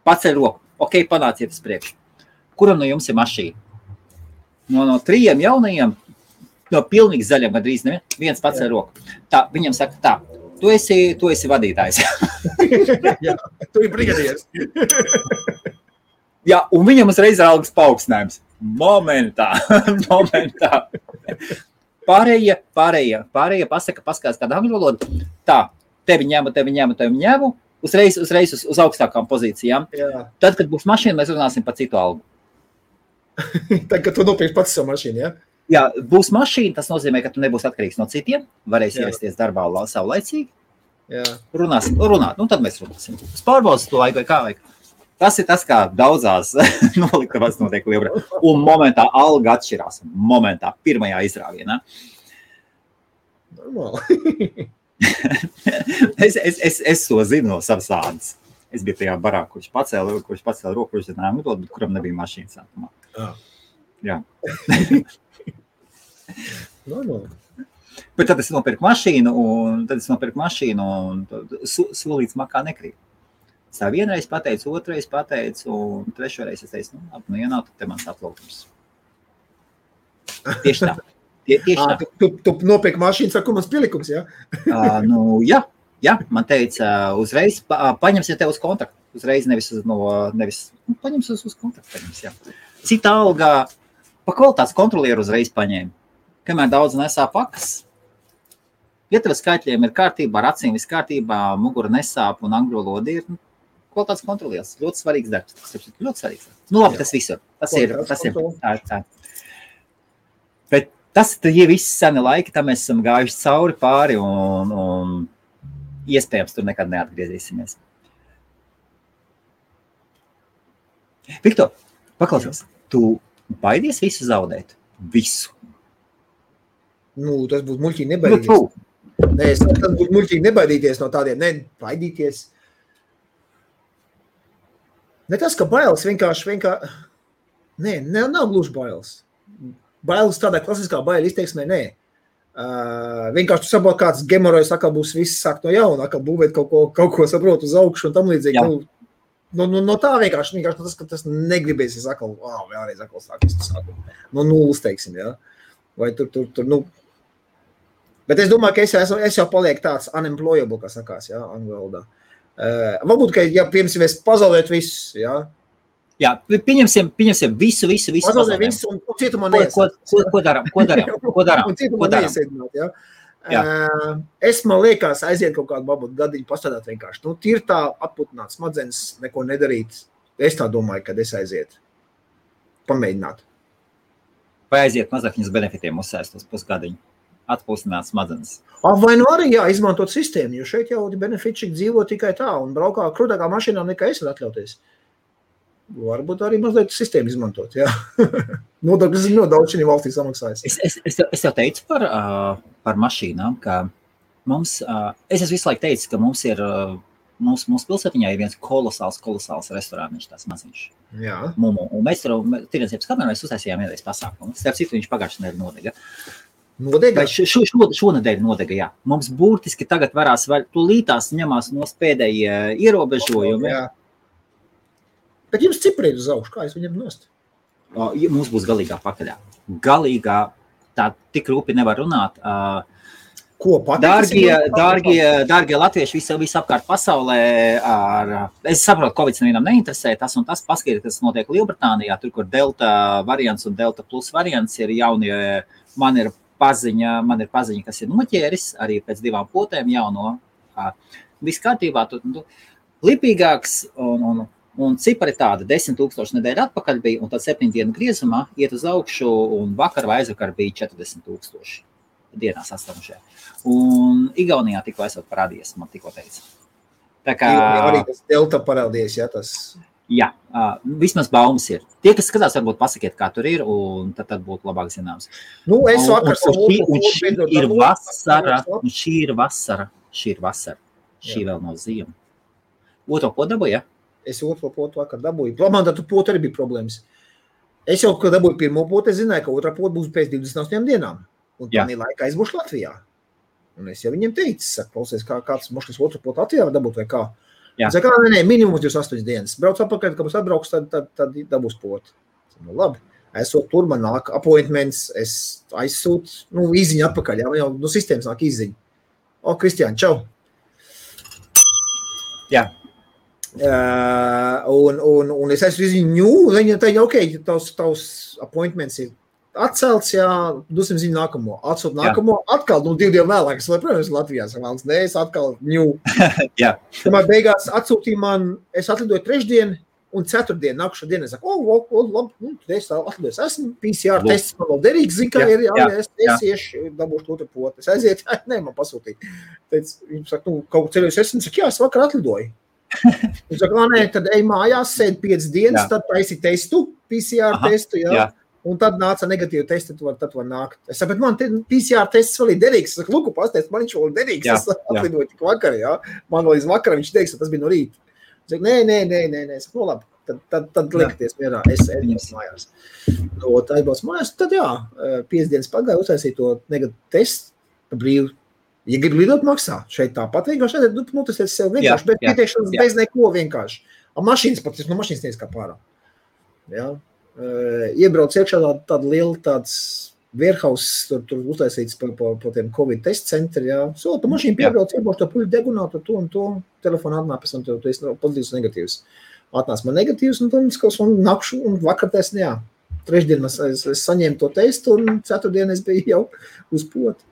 Paceļ roku. Ok, panāciet uz priekšu. Kuram no jums ir mašīna? No 3 jaunajiem, no pilnīgi zaļiem, gandrīz viens paceļ roku. Tā, viņam saka tā, tu esi vadītājs. Jā, tu ir brigadieris. Jā, un viņam uzreiz ir algas paaugstinājums. Momentā. Pārējie paskatās kādu angļu valodu. Tā, tevi ņemu. Uzreiz uz augstākām pozīcijām. Jā. Tad, kad būs mašīna, mēs runāsim par citu algu. Tad, kad tu nopirksi pats savu mašīnu, ja? Jā, būs mašīna, tas nozīmē, ka tu nebūsi atkarīgs no citiem, varēsi ierasties darbā savlaicīgi. Jā. Runāt, tad mēs runāsim. Pārbaudas to laiku vai kā vajag. Tas ir tas, kā daudzās noliktavās notiek Lielbritānijā. Un momentā alga atšķirās. Momentā, pirmajā izrāvienā. Normāli. Es to zinu no savas ādas. Es biju tajā barā, kurš pacēla roku, kurš zināja, bet kuram nebija mašīnas sākumā. Jā. Normāli. Bet tad es nopirku mašīnu, un solīts makā nekrīt. Es tā vienreiz pateicu, otrais pateicu, un trešoreiz es teicu, ja nav, tad te mans aplaukums. Tieši tā. Tu nopirki mašīnu, saku, mans pielikums, jā? Jā, man teica, uzreiz paņemsiet tev uz kontraktu. Uzreiz paņems uz kontraktu. Jā. Cita algā, pa kvalitātes kontrolieru uzreiz paņēma. Kamēr daudz nesā pakas, ja tev skaitļiem ir kārtībā, ar acīm viss kārtībā, mugura nesāp un angļu valoda ir kvalitātes kontrolieris. Ļoti svarīgs darbs. Ļoti svarīgs. Labi, tas visur. Tas ir. Tā. Bet tas ir viss seni laiki, tam mēs esam gājuši cauri pāri un iespējams tur nekad neatgriezīsimies. Viktor, paklausies, tu baidies visu zaudēt? Visu? Tas būtu muļķīgi nebaidīties. Nē, tas būtu muļķīgi nebaidīties no tādiem, baidīties. Ne tas, ka bailes vienkārši. Nē, nav gluži bailes. Bailes tādā klasiskā baila izteiksmē, nē. Vienkārši tu saproti, kāds gemorojas, atkal būs viss sākt no jauna, atkal būvēt kaut ko saprot uz augšu un tam līdzīgi. No tā vienkārši tas, ka tas negribēsies atkal, vēlreiz atkal sākt. No nulles, teiksim, jā. Vai tur. Bet es domāju, ka es jau palieku tāds unemployable, kā sakās, jā, angļu valodā. Varbūt, ka, piemēram, es pazaudētu visu, jā. Jā, pieņemsim visu. Pazaudēt visu un cietumā neiesēdināt. Ko darām? Un cietumā neiesēdināt, jā. Es, man liekas, aiziet kaut kādu babu gadiņu pastrādāt vienkārši. Tīri tā atputināt smadzenes, neko nedarīt. Es tā domāju, kad es aiziet. Pamēģināt. Vai aiziet mazākņas benefitiem uzsēst uz pusgadiņu? Atpūstināt smadzenes. Vai arī, izmantot sistēmu, jo šeit jau benefitšik dzīvo tikai tā un braukā krūtākā mašīnā nekā es var atļauties. Varbūt arī mazliet sistēmu izmantot, jā. Nodokļus ļoti daudz šī valstī samaksājas. Es jau teicu par mašīnām, ka mums, es visu laiku teicu, ka mums ir mūsu pilsētiņā ir viens kolosāls restorāniņš, tās maziņš. Jā. Mumu. Un mēs tur tirdzniecības kamerā mēs uztaisījām vienreiz pasākumu. Starp citu, viņš pagājušajā nedēļā nodega. Nodega? Šonedēļ nodega, jā. Mums burtiski tagad varās, tūlītās ņemās no pēdējie ierobežojumi. Jā. Bet jums cipri ir uz augšu, kā es viņam nost? Mums būs galīgā pakaļā. Galīgā, tā tik rūpi nevar runāt. Ko pateikt? Dārgie latvieši visapkārt pasaulē, es saprotu, Covid nevienam neinteresē, tas un tas paskatīt, kas notiek Lielbritānijā, tur, kur Delta variants un Delta plus variants ir jaunie, man ir paziņa, kas ir noķēris, arī pēc 2 potēm jauno, viss kārtībā, lipīgāks un cipari tāda 10 000 nedēļa atpakaļ bija, un tad 7 dienu griezumā iet uz augšu, un vakar vai aizvakar bija 40 000 dienās astamušajā. Un Igaunijā tikko esot parādījies, man tikko teica. Tā kā... Arī tas Delta parādījies, jā, tas... Jā, vismaz baumas ir. Tie, kas skatās, varbūt pasakiet, kā tur ir, un tad būtu labāk zināms. Nu, es vakar... Šī ir vasara. Šī vēl nav ziema. Otro potu dabūju, ja? Es otro potu vakar dabūju. Man tad potu arī bija problēmas. Es jau, kad dabūju pirmo potu, es zināju, ka otrā potu būs pēc 28 dienām. Un tādā laikā es būšu Latvijā. Un es jau viņiem teicu, saku, klausies, kāds moškas otru potu Latvijā var dabūt vai kā. Es saku, nē, minimums 28 dienas. Brauc apakaļ, kad būs atbrauks, tad dabūs potu. Nu, labi. Esot tur, man nāk appointments, es aizsūtu, īziņu atpakaļ, jā, jau no sistēmas nāk īziņu. Kristiāni, čau. Jā. Un es esmu izziņu, viņa teica, ok, tavs appointments ir atcelts, jā, dosim ziņu nākamo. Atsūt nākamo, atkal, 2 dienu vēlāk, es protams, Latvijā savēlas, nē, es atkal ņū. Jā. Tomēr beigās atsūtīja man, es atlidoju 3. un 4. nākušā dienu, es saku, labi, es atlidojos, esmu PCR tests, man vēl derīgs, zinu, kā ir, es iešu, dabūšu otru potu. Es aiziet, nē, man pasūtīja. Viņš saka, kaut ceļojos esmu, saka, jā, es vakar atlidoju. Viņš saka, nē, tad ej mājās, sēd 5 dienas, tad taisi testu, PCR testu, jā. Un tad nāca negatīva testa, tad var nākt. Es saku, bet man PCR tests vēl ir derīgs. Es saku, lūku, pastāst, man viņš vēl ir derīgs. Es atlidoju tik vakar, jā. Man vēl iz vakara viņš teiks, tas bija no rīta. Es saku, nē. Es saku, labi, tad likties mierā. Es mājās. Tā aizbrauc mājās, tad jā, 5 dienas pagāja, uztaisīja to negatīvu testu, brīvi. Ja grib lidot, maksā. Šeit tāpat vienkārši, tas ir sev vienkārši, bet pieteikšanas bez neko vienkārši. Mašīnas pat, no mašīnas teiks kā pārā. Jā. Iebrauc iekšā tāda liela tāds warehouse, tur uztaisīts pa tiem Covid test centri, jā. Pa mašīnu piebrauc, iebrauc to puļu degunātu, to un to, telefonu atnāk, pēc tam tu esi pozitīvs un negatīvs. Atnāc man negatīvs, un tad un nakšu, un vakar test, jā. 3 dienu es saņēmu to testu, un 4 dienu es biju jau uz potu.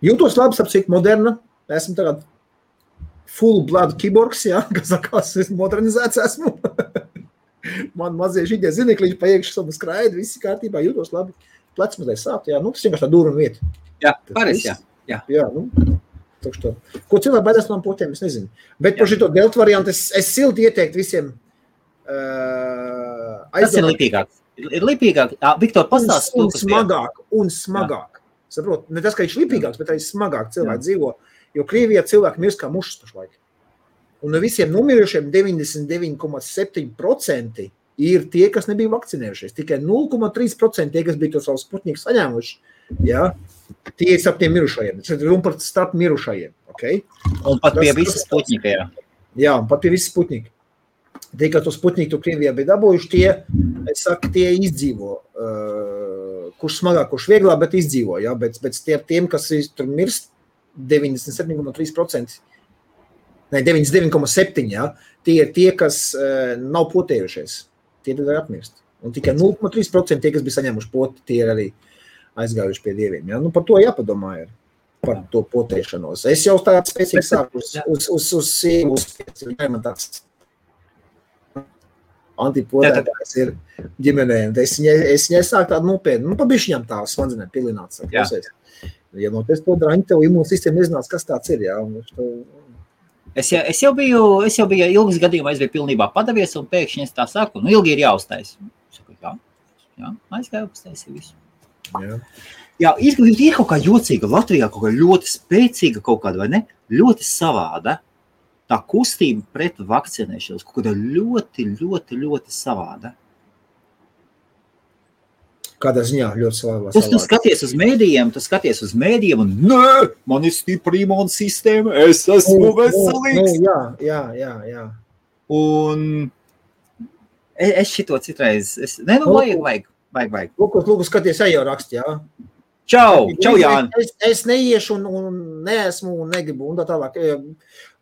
Jūtos labi, sapcīt moderna, esmu tagad full blood kiborgs, jā, kas sakās, es modernizēts esmu. Man mazie šitie zinekliņi pa iekšu savu skraidu, visi kārtībā, jūtos labi. Plec mazliet sāp, jā, tas vienkārši tā dūra un vieta. Jā, pareiz, jā. Jā, tā. Ko cilvēki baidās no potiem, es nezinu. Bet par šito delta variantu es silti ieteiktu visiem Tas ir lipīgāk. Ir lipīgāk. Viktor, pastāst un smagāk. Saprot, ne tas, ka viņš lipīgāks, bet arī smagāk cilvēki dzīvo, jo Krievijā cilvēki mirst kā mušas pašlaik. Un no visiem nomirušiem 99,7% ir tie, kas nebija vakcinējušies. Tikai 0,3% tie, kas bija to savu Sputniku saņēmuši. Jā, tie ir starp tiem mirušajiem. Tas ir runa par starp mirušajiem. Okay? Un pat pie visas Sputnika, jā. Jā, un pat pie visas Sputnika. Tie, kas to Sputniku Krievijā bija dabūjuši, tie izdzīvo. Kurš smagāk, kurš vieglāk, bet izdzīvo. Jā? Bet tiem, kas tur mirst, 97,3%. Ne, 99,7, jā. Tie ir tie, kas nav potējušies. Tie tad var atmirst. Un tikai 0,3% tie, kas bija saņēmuši poti, tie ir arī aizgājuši pie dieviem. Jā. Par to jāpadomā ir. Par to potēšanos. Es jau tādu spēcīgi sāku uz sievu, man tāds antipotētājs ir ģimenēm. Es viņai sāku tādu nopietnu, pa bišķiņām tā smadzenēm pilināts. Ja no tes to draņi, tev imūnsistēma nezinās, kas tāds ir, jā. Es jau biju ilgas gadījumā, es biju pilnībā padavies, un pēkšņi es tā saku, ilgi ir jāuztais. Saku, jā, aizgāju uztaisīju visu. Jā, ir kaut kā jocīga Latvijā, kaut kā ļoti spēcīga kaut kāda, vai ne? Ļoti savāda. tā kustība pret vakcinēšanos kaut kāda ļoti savāda. Kādā ziņā ļoti savādā. Tu skaties uz mēdījiem un nē, man ir stipra imūnsistēma, es esmu veselīgs. Jā. Un es šito citreiz, vajag. Lūk, skaties, jau raksti, jā. Čau, Jāni. Es neiešu un neesmu un negribu un tā tālāk.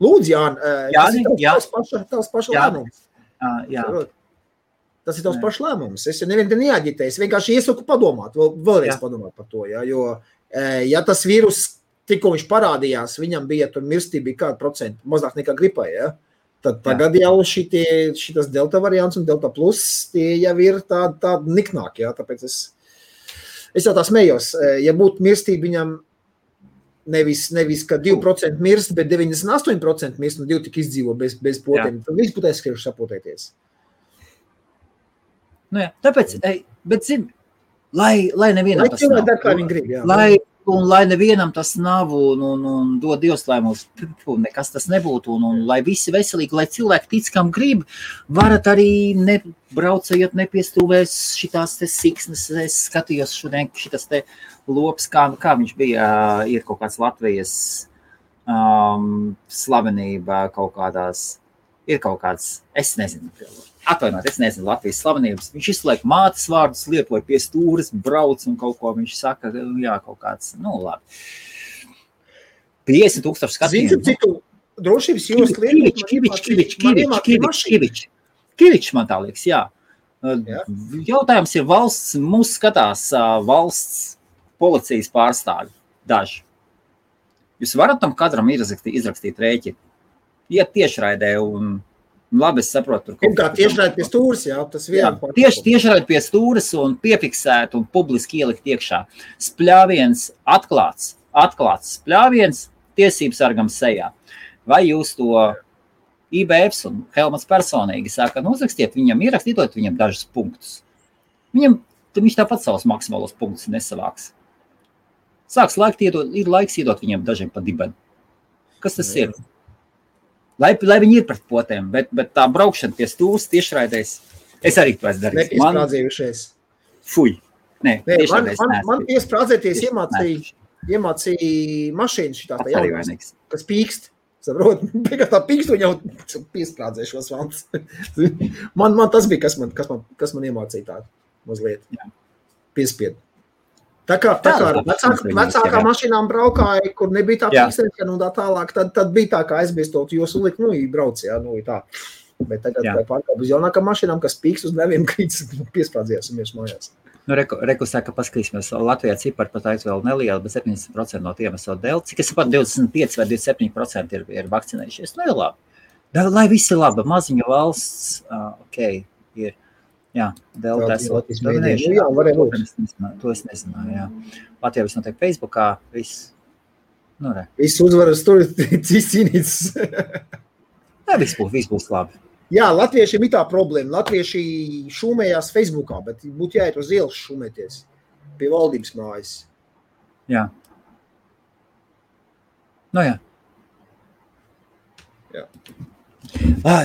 Lūdzu, Jāni, tavs paša lēmums. Jā. Tas ir tavs paša lēmums. Es nevienu te neaģitēju. Es vienkārši iesaku padomāt, vēlreiz padomāt par to. Jo, ja tas vīrus, tikko viņš parādījās, viņam bija tur mirstība kādu procentu, mazāk nekā gripai, ja? Tad tagad jau šitas delta variants un delta plus, tie jau ir tādi niknāki, ja? Tāpēc es jau tā smējos. Ja būtu mirstība viņam nevis ka 2% mirst, bet 98% mirst un 2 tik izdzīvo bez potiem, tad viss būtu aizskrieši sapotēties. Nu jā, tāpēc, bet zini, lai nevienam tas nav. Kā viņi grib, jā. Lai nevienam tas nav un dod Dievs, lai mums nekas tas nebūtu un lai visi veselīgi, lai cilvēki tic, kam grib, varat arī braucējot nepiestūvēs šitās te siksnes. Es skatījos šodien šitas te lops, kā viņš bija, ir kaut kāds Latvijas slavenība kaut kādās, ir kaut kāds, es nezinu Latvijas slavenības. Viņš izliek mātes vārdus, lietoja pie stūres, brauc un kaut ko viņš saka, jā, kaut kāds, labi. 50,000 skatījumu. Zinu, citu drošības jūs Kivičs man tā liekas, jā. Jautājums ir mūs skatās valsts policijas pārstāvi daži. Jūs varat tam katram izrakstīt rēķi. Iet tiešraidē un labi, es saprotu. Kā tiešraid pie stūres, jā, tas vienā. Tiešraid pie stūres un piefiksēt un publiski ielikt iekšā. Spļāviens atklāts spļāviens tiesības sargam sejā. Vai jūs to IBFs un Helmats personīgi saka, uzrakstiet viņam, ierakstītot viņam dažus punktus. Viņš tāpat savus maksimālos punktus nesavāks. Ir laiks iedot viņam dažiem pa dibeni. Kas tas ir? Lai viņi ir pret potēm, bet tā braukšana pie stūres tiešraidēs, es arī to esmu darījis. Nepiesprādzējušies. Fuj. Man piesprādzēties iemācīja mašīnu šitā tā jaunās, kas pīkst. Saprot, pēc tā pīkst un jau piesprādzēšos vants. Man tas bija, kas man iemācīja tā mazliet. Piespied. Tā kā vecākā mašīnām braukāja, kur nebija tā pīkstēšana un tā tālāk, tad bija tā, kā aizbiestot, jo sulikt, brauc, jā, tā. Bet tagad pārkāp uz jaunākām mašīnām, kas pīkst uz neviem krītas, piesprādzījās un miers mājās. Reku saka, paskatīsimies, Latvijā cipari pat vēl neliela, bet 70% no tiem esot delta. Cik es saprotu, 25 vai 27% ir vakcinējušies. Nu, ir labi. Lai viss ir labi, maziņa valsts, ir. Jā, delta esot. Jā, varēja būt. To es nezināju, jā. Latvijā viss notiek Facebookā, viss. Viss uzvaras tur cīnīts. Jā, viss būs labi. Jā, latviešiem ir tā problēma. Latvieši šūmējās Facebookā, bet būtu jāiet uz ielas šūmēties pie valdības mājas. Jā. Jā.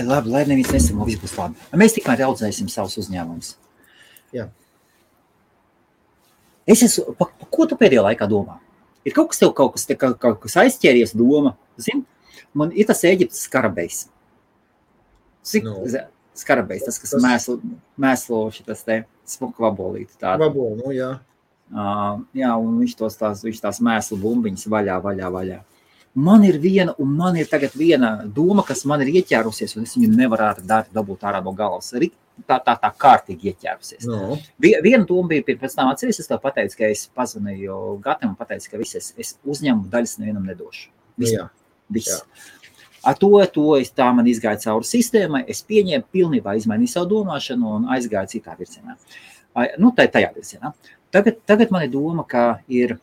Labi, lai neviens nesamo, viss būs labi. Mēs tikmēr audzēsim savus uzņēmumus. Jā. Ko tu pēdējā laikā domā? Ir kaut kas aizķēries doma? Zini, man ir tas Ēģiptes skarabejs. Skarabejs, tas, kas mēslo šitas te smuku vabolīti. Vabolu, jā. Jā, un viņš tās mēslu bumbiņas vaļā. Man ir tagad viena doma, kas man ir ieķērusies, un es viņu nevarētu dabūt ārā no galvas. Tā kārtīgi ieķērusies. No. Viena doma bija pēc tam atceries, es tev pateicu, ka es pazvanīju Gatam un pateicu, ka es uzņemu daļas nevienam nedošu. Viss. Ar to tā man izgāja cauri sistēmai, es pieņēmu, pilnībā izmainīju savu domāšanu un aizgāju citā virzienā. Tajā virzienā. Tagad man ir doma, ka ir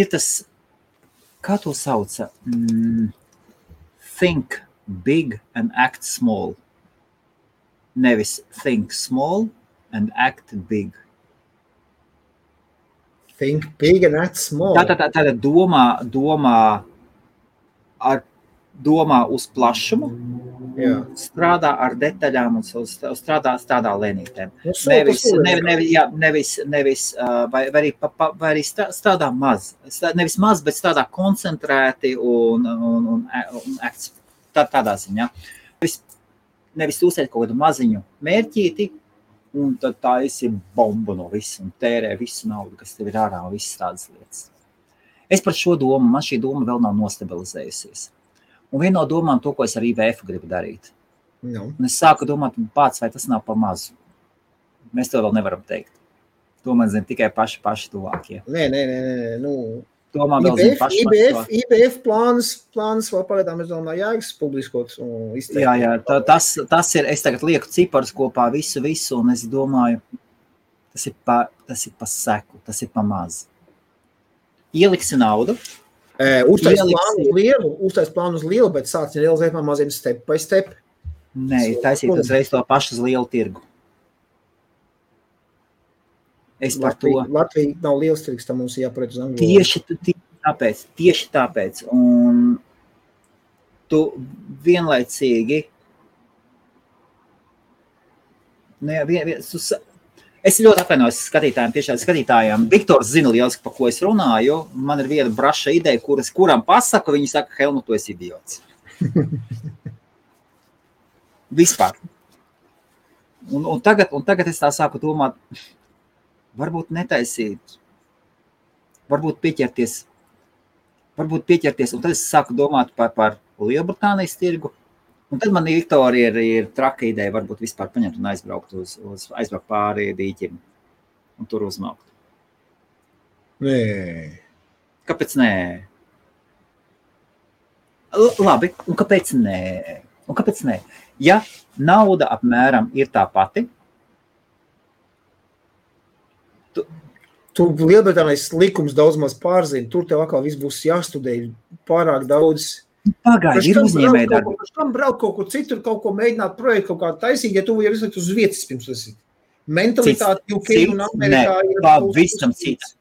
tas, kā to sauca? Think big and act small. Nevis think small and act big. Think big and act small. Tā domā ar domā uz plašumu, Jā. strādā ar detaļām un strādā lēnītēm. Vai arī strādā maz. Nevis maz, bet strādā koncentrēti un tādā ziņā. Nevis uzsēt kaut kādu maziņu mērķīti, un tad tā esi bombu no visu un tērē visu naudu, kas tev ir ārā un visas tādas lietas. Es par šo domu, man šī doma vēl nav nostabilizējusies. Un viena no domām to, ko es ar IVF gribu darīt. No. Un es sāku domāt, pats, vai tas nav pa mazu. Mēs to vēl nevaram teikt. To man zina tikai paši tuvākie. Nē. Domā vēl zina paši tuvākie. IBF plāns vēl pagaidām, es domāju, jāiks publiskot un izteikt. Jā, tas ir, es tagad lieku ciparus kopā visu, un es domāju, tas ir pa seku, tas ir pa maz. Ieliksi naudu. Uztais plānu uz lielu, bet sāc realizēt man maziem step by step. Nē, taisīt uzreiz to pašu uz lielu tirgu. Es par to. Latvija nav liels tirgs, tā mums jāpariet uz Angliju. Tieši tāpēc. Un tu vienlaicīgi es ļoti atvainojos skatītājiem. Viktors zina lieliski, pa ko es runāju. Man ir viena braša ideja, kuram pasaku, viņi saka, Helmut, tu esi idiots. Vispār. Un tagad es tā sāku domāt, varbūt netaisīt, varbūt pieķerties, un tad es sāku domāt par Lielbritānijas tirgu. Un tad man Viktorija ir traka ideja, varbūt vispār paņemt un aizbraukt pāri dīķim un tur uzmaukt. Nē. Kāpēc nē? Labi, un kāpēc nē? Ja nauda apmēram ir tā pati, Tu Lielbritānijas likums daudz maz pārzini, tur tev atkal viss būs jāstudē pārāk daudz. Pagaidi, ir uzņēmēji darbi. Kam braukt kaut kur citur, kaut ko mēģināt projektu, kaut kā taisīgi, ja tu jau izlikt uz vietas pirms esi. Mentalitāte UK un Amerikā ir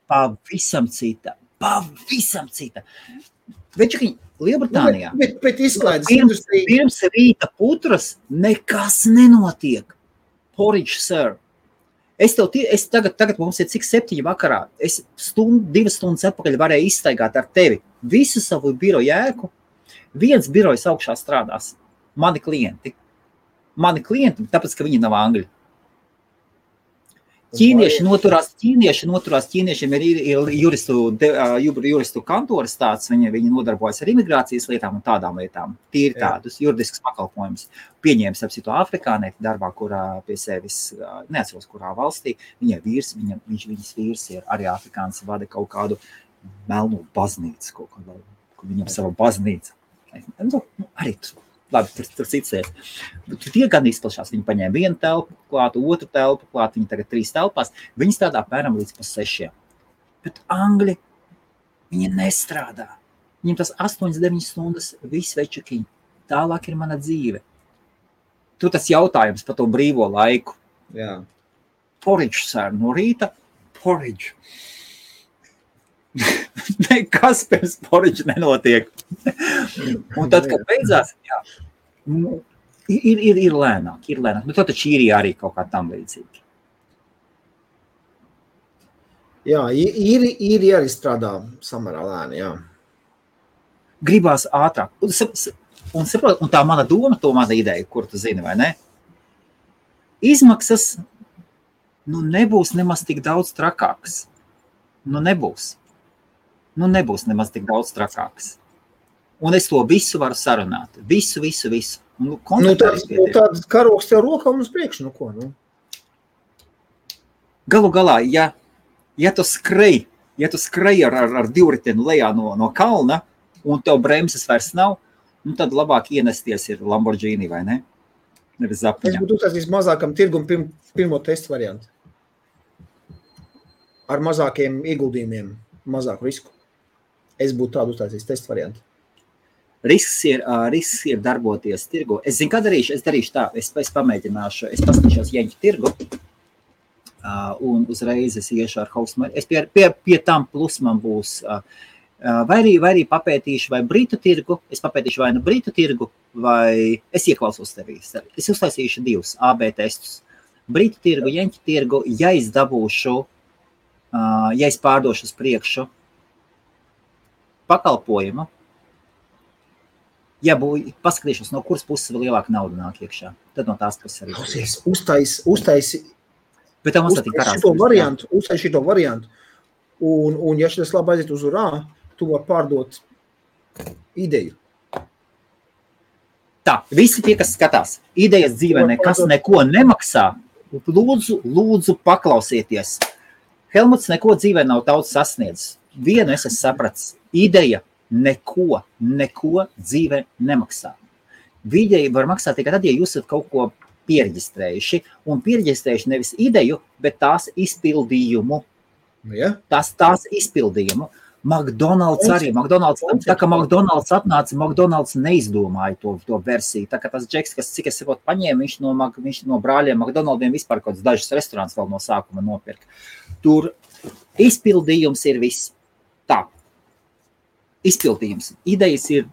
pavisam cita. Večukiņ, Lielbritānijā. Bet izklaides industrija. Pirms rīta putras nekas nenotiek. Porridge, sir. Tagad mums ir cik 7 vakarā. Es 2 stundas atpakaļ varēju izstaigāt ar tevi visu savu biroju ēku. Viens birojs augšā strādās. Mani klienti, tāpēc, ka viņi nav angļi. Ķīnieši noturās, ķīniešiem ir juristu kantoras tāds, viņi nodarbojas ar imigrācijas lietām un tādām lietām. Tīri tādus juridiskus pakalpojumus. Pieņēmis apsito afrikānieti darbā, kurā pie sevis, neatceros, kurā valstī, viņas vīrs ir arī afrikāns, vada kaut kādu melnu baznīcu, kaut kādu, viņam sava baznīca. Arī labi, tur cits lietas. Tie gan izplašās. Viņi paņēma vienu telpu klāt, otru telpu klāt, viņi tagad 3 telpās. Viņi strādā apmēram līdz pa 6. Bet angļi, viņi nestrādā. Viņiem tas 8-9 stundas viss večukiņi. Tālāk ir mana dzīve. Tur tas jautājums par to brīvo laiku. Jā. Porridge, sir, no rīta porridge. Nekas pirms porridge nenotiek. Un tad, kad beidzās, ir lēnāk. Bet tad Čīrijā arī kaut kā tam līdzīgi. Jā, īri arī strādā samērā lēni, jā. Gribās ātrāk. Un tā mana doma, to mana ideja, kur tu zini, vai ne? Izmaksas, nebūs nemaz tik daudz trakāks. Nebūs nemaz tik daudz trakāks. Un es to visu varu sarunāt. Visu. Tāds karoks tev rokā un uz priekšu, ko? Galu galā, ja tu skrej ar divriteni lejā no kalna, un tev bremzes vairs nav, tad labāk ienesties ir Lamborghini, vai ne? Nevis zapiņā. Es būtu uztaisījis mazākam tirgum pirmo testu variantu. Ar mazākiem ieguldījumiem, mazāku risku. Es būtu tādu uztaisījis testu variantu. Risks ir darboties tirgu. Es zinu, kā darīšu. Es darīšu tā. Es pamēģināšu. Es paskatīšos Jeņķu tirgu. Un uzreiz es iešu ar host. Es pie tam plus man būs Vai arī papētīšu, vai Britu tirgu, es papētīšu vai nu Britu tirgu, vai es ieklausos tevī. Es uztaisīšu 2 AB testus. Britu tirgu, Jeņķu tirgu, ja es dabūšu, ja es pārdošu uz priekšu pakalpojumu, ja paskatīšos, no kuras puses vēl lielāka nauda nāk iekšā, tad no tās puses arī. Uztaisi šito variantu, un ja šitas labi aiziet uz urā, tu var pārdot ideju. Tā, visi tie, kas skatās, idejas dzīvē nekas neko nemaksā, lūdzu paklausieties. Helmuts neko dzīvē nav daudz sasniedzis. Vienu es esmu sapratis, ideja neko dzīvē nemaksā. Ideja var maksāt tikai tad, ja jūs esat kaut ko piereģistrējuši, un piereģistrējuši nevis ideju, bet tās izpildījumu. Ja? Tās izpildījumu. McDonald's arī. Tā kā McDonald's atnāca, McDonald's neizdomāja to versiju. Tā kā tas džeks, kas cik es saprotu paņēma, viņš no brāļiem McDonald'iem vispār kaut kāds dažus restorāns vēl no sākuma nopirka. Tur izpildījums ir viss. Tā. Izpildījums. Idejas ir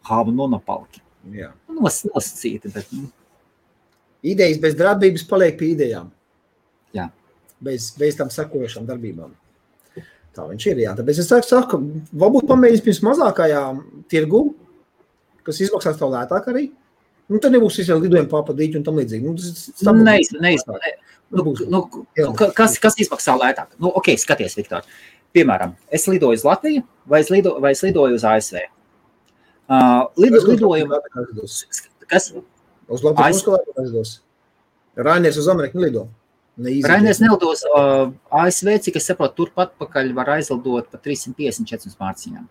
monopalki. Jā. Nosacīti, bet... Idejas bez darbības paliek pie idejām. Jā. Bez tam sekojošām darbībām. Tā viņš ir, jā. Tāpēc es saku, varbūt pamēģinās pirms mazākajām tirgu, kas izmaksās tev lētāk arī. Nu, tad nebūs visiem lidojumi pārpadīķi un tam līdzīgi. Kas izmaksā lētāk? Nu, ok, skaties, Viktor. Piemēram, es lidoju uz Latviju vai es lidoju uz ASV? Lidojumu... Kas? Uz Latviju aizdos. Rainiers uz Ameriku nelido. Rainiers nelidos. ASV, cik es saprotu, turpat pakaļ var aizlidot pa 354 mārciņām.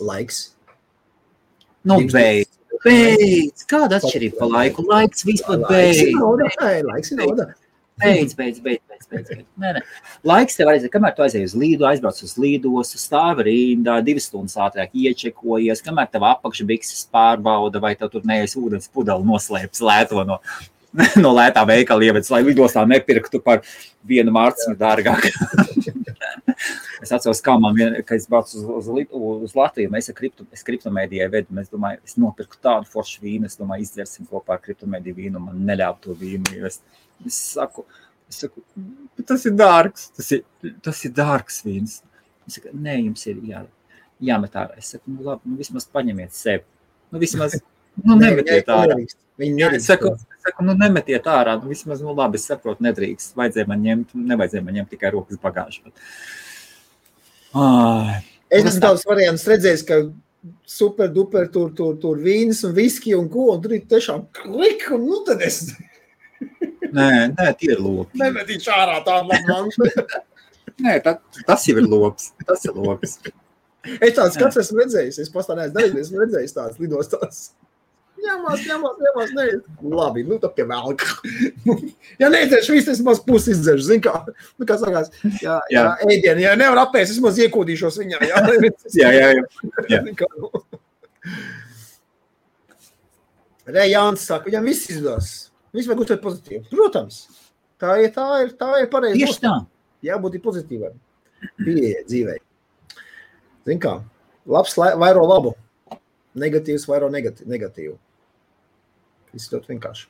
Laiks? Nu, beidz. Kāda atšķirība pa laiku? Laiks vispār beidz. Laiks ir nauda. Beidz. Nē. Laiks tev aiziet, kamēr tu aizies uz līdu, aizbrauc uz līdos, stāvi rindā, 2 stundas ātrāk iečekojies, kamēr tev apakšbikses pārbauda, vai tev tur neesi ūdens pudeli noslēpts lēto no lētā veikala ievedis, lai lidostā nepirktu par 1 mārciņu dārgāk. Es atceros, kā kad es braucu uz Latviju, es kriptomēdijai vedu, es domāju, es nopirku tādu foršu vīnu, es domāju, izdzersim kopā ar kriptomēdiju vīnu, man neļāva to vīnu, jo es saku, tas ir dārgs, tas ir dārgs vīns. Es saku, nē, jums ir jāmet ārā. Es saku, nu labi, vismaz paņemiet sevi. Vismaz, nemetiet ārā. Es saku, nemetiet ārā, vismaz, labi, es saprotu, nedrīkst. Nevajadzēja man ņemt tikai rokas bagāžu. Es esmu tavs variants redzējis, ka super duper tur vīnas un viski un ko, un tur ir tiešām klik, un tad es... Nē, tie ir lopi. Nemetīšu ārā tādu labu. Nē, tas jau ir lops. Tas ir lops. Es tāds skats esmu redzējis, es pastāvējis darīt, esmu redzējis tāds lidostās. Ņemās, nē. Labi, tad pie vēlka. Ja neizdzeršu visu, es maz pusi izdzeršu, zin kā. Nu, kā sakās, jā, ēdienu, ja nevar apēst, es maz iekūdīšos viņā. Jā. Re, Jānis saka, viņam viss izdos. Viss vajag uztvert pozitīvi. Protams, tā ir pareizi. Tieši tā. Jābūt ir pozitīvai. Pieeja dzīvei. Zin kā, labs vairo labu, negatīvs vairo negatīvu. Viss ļoti vienkārši.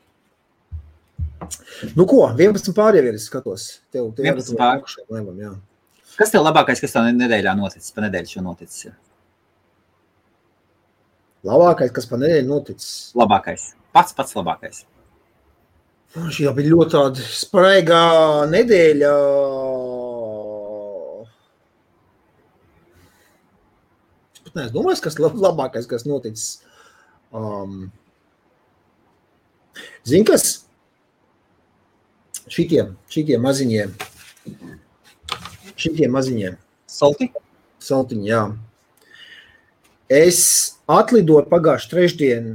Nu ko, 11 pār jau ir, es skatos. Tev 11 pār. Jā. Kas tev labākais, kas tev nedēļā noticis? Pa nedēļu šo noticis ir? Labākais, kas pa nedēļu noticis? Labākais. Pats labākais. Šī jau bija ļoti tāda spraigā nedēļa. Es pat neesmu domājis, kas labākais, kas noticis. Zini, kas? Šitie maziņie. Saltiņi, jā. Es atlidoju pagājuši trešdien,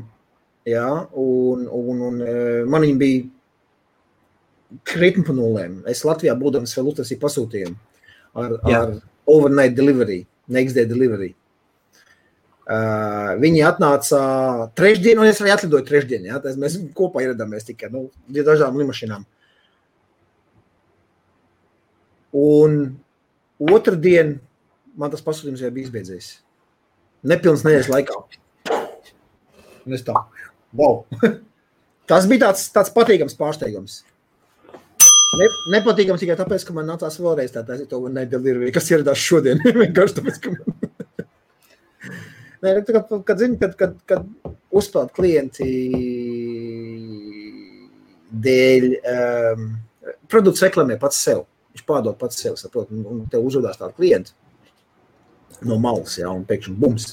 jā, un man viņi bija krietni pa nulēm. Es Latvijā būdams vēl uztaisīju pasūtījumu ar overnight delivery, next day delivery. Viņi atnāca trešdien, un es arī atlidoju trešdien, jā. Mēs kopā ieradāmies tikai, dažām limašinām. Un otrdien man tas pasūtījums jau bija izbeidzies. Nepilns nedēļas laikā. Un es tā, wow. Tas bija tāds patīkams pārsteigums. Nepatīkams tikai tāpēc, ka man nācās vēlreiz tā to nedelivery, kas ieradās šodien. Vienkārši tāpēc, ka man... Kad zini, kad uzpeld klienti dēļ produkts reklamē pats sev. Viņš pārdod pats sev, saprot, un tev uzvedās tādu klientu no malas, jā, un pēkšņi bums.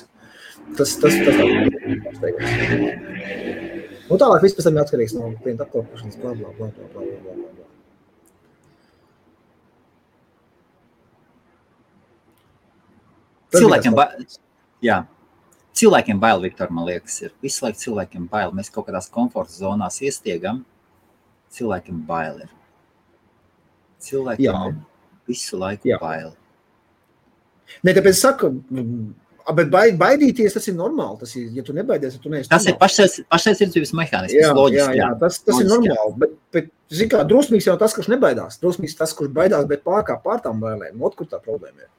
Tas tā pārsteigums. Un tālāk viss pēc tam atkarīgs no klienta apkalpošanas, blā. Cilvēkiem bail, Viktor, man liekas, ir. Visu laiku cilvēkiem bail. Mēs kaut kādās komforta zonās iestiegam. Cilvēkiem bail ir. Cilvēkiem visu laiku bail. Ne, tāpēc saku, bet baidīties, tas ir normāli. Tas ir, ja tu nebaidies, tu neesi tas normāli. Tas ir pašaizsardzības mehānisms, loģiski. Jā, tas ir normāli. Bet zin kā, drosmīgs jau tas, kurš nebaidās. Drosmīgs tas, kurš baidās, bet pārtām bailēm. Ot, kur tā problēma ir.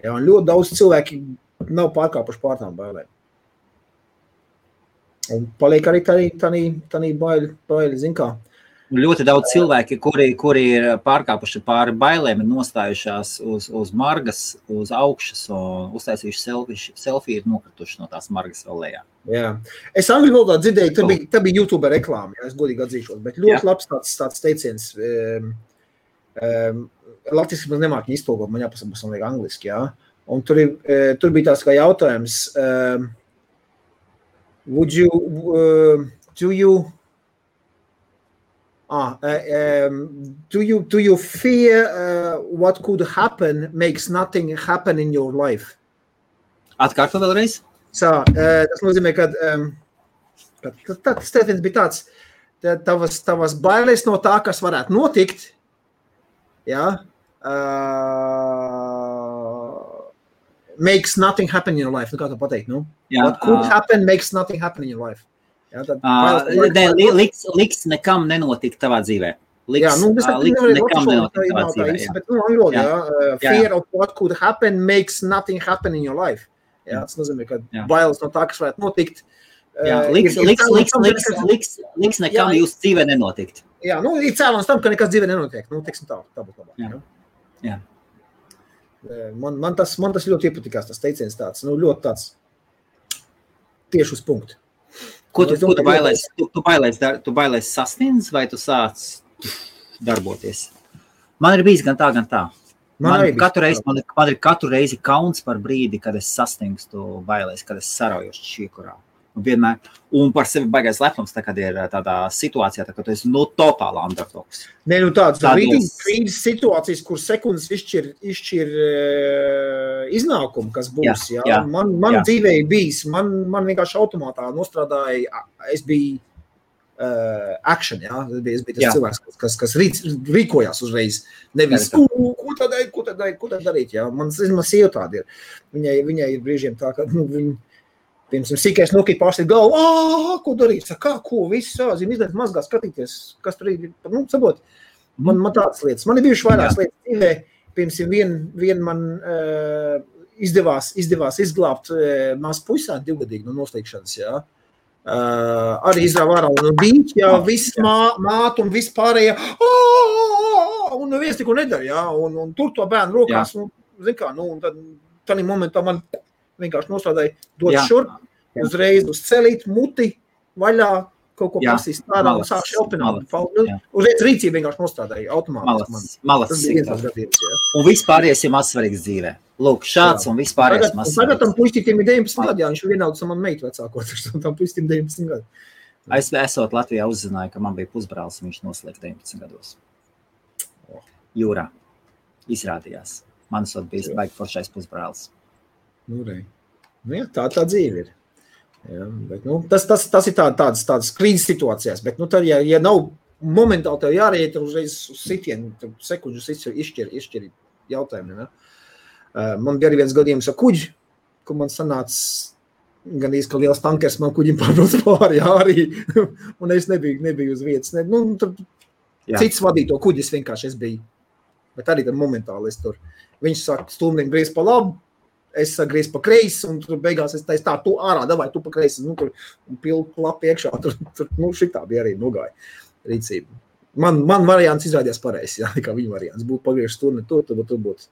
Jā, un ļoti daudz cilvēki nav pārkāpuši pārtām bailēm. Un paliek arī tādī baili, zin kā. Ļoti daudz cilvēki, kuri ir pārkāpuši pāri bailēm, ir nostājušās uz margas, uz augšas un uztaisījuši selfiju, ir nokrituši no tās margas vēl lejā. Jā. Es angļu valodā dzirdēju, tā bija YouTube reklāma, jā, es godīgi atzīšos, bet ļoti labs tāds teiciens. Latviski man nemāk iztulkot, man jāpasaka, man liek angliski, jā. Un tur bija tāds kā jautājums, do you fear what could happen makes nothing happen in your life? Atkārto vēlreiz? Tas nozīmē, ka tas teiciens bija tāds, tavas bailes no tā, kas varētu notikt, jā, makes nothing happen in your life. Nu, kā to pateikt, nu? What could happen makes nothing happen in your life. Jā, liks nekam nenotikt tavā dzīvē. Liks nekam nenotikt tavā dzīvē. Bet, fear of what could happen makes nothing happen in your life. Jā, tas nozīmē, ka bailes no tā, kas varētu notikt. Liks nekam jūsu dzīvē nenotikt. Jā, ir cēlons tam, ka nekas dzīvē nenotiek. Nu, teiksim tā būtu labāk. Jā. Man tas ļoti iepatikās, tas teiciens tāds, ļoti tāds tieši uz punktu. Ko tu bailēs sasniedz, vai tu sāc darboties? Man ir bijis gan tā, gan tā. Man ir katru reizi kauns par brīdi, kad es sasniegstu bailēs, kad es sarauju šķiekurā. Un par sevi baigais lepnums, kad ir tādā situācijā, kad tu esi totāli underdogs. Nē, tāds krīzes situācijas, kur sekundes izšķir iznākumu, kas būs. Jā. Man dzīvē bijis, man vienkārši automātā nostrādāja, es biju action, jā. Es biju tas cilvēks, kas rīkojās uzreiz. Nevis, ko tad darīt, jā. Man sieva tāda ir. Viņai ir brīžiem tā, ka piemēram, sīkais nokīt pārsteigt galvu, ko darīt, ko, viss, izdarīt mazgā skatīties, kas tur ir, sabot, man tādas lietas. Man ir bijuši vairākas lietas dzīvē, piemēram, vien man izdevās izglābt maz puisāt 2-gadīgi no noslīgšanas, jā. Arī izrāva ārā un bija, jā, viss mātu un viss pārējā, un neviens neko nedara, jā, un tur to bērnu rokās, zin kā, un tad tādā momentā man vienkārši nostrādāja dot šurp, uzreiz uz celīt, muti, vaļā, kaut ko pasīs tādā un sāk šelpināt. Uzreiz rīcība vienkārši nostrādāja automātiski. Malas. Un vispārējais ir mazsvarīgs dzīvē. Lūk, šāds un vispārējais mazsvarīgs. Tagad tam puistītim ir 19 gadi, jā, viņš vienauds man meitu vecākot, tam puistītim 19 gadi. Es esot Latvijā uzzināju, ka man bija pusbrālis, un viņš noslēg 19 gados. Jūrā. Izrādījās. Man esot bijis baigi foršais pusbrālis. Jā, tā dzīve ir. Jā, bet, tas ir tādas krīzes situācijās, bet tad, ja nav momentāli tev jāreiet uzreiz uz sitienu, tad sekundžus izšķir jautājumi. Ne? Man bija arī viens gadījums ar kuģi, kur man sanāca gan īsti, ka liels tankers man kuģim pārbrauc pāri arī, un es nebiju uz vietas. Cits vadīja to kuģis vienkārši, es biju Bet arī tad momentāli es tur. Viņš saka, stumdim griez pa labu, es saku griez pa kreisi, un tur beigās es teicu tā, tu ārā, davai, tu pa kreisi, nu, tur pilku lapu iekšā, tur, nu, šitā bija arī nogāja rīcība. Man variants izrādījās pareizi, jā, kā viņa variants. Būtu pagriežs tur, ne tur būtu.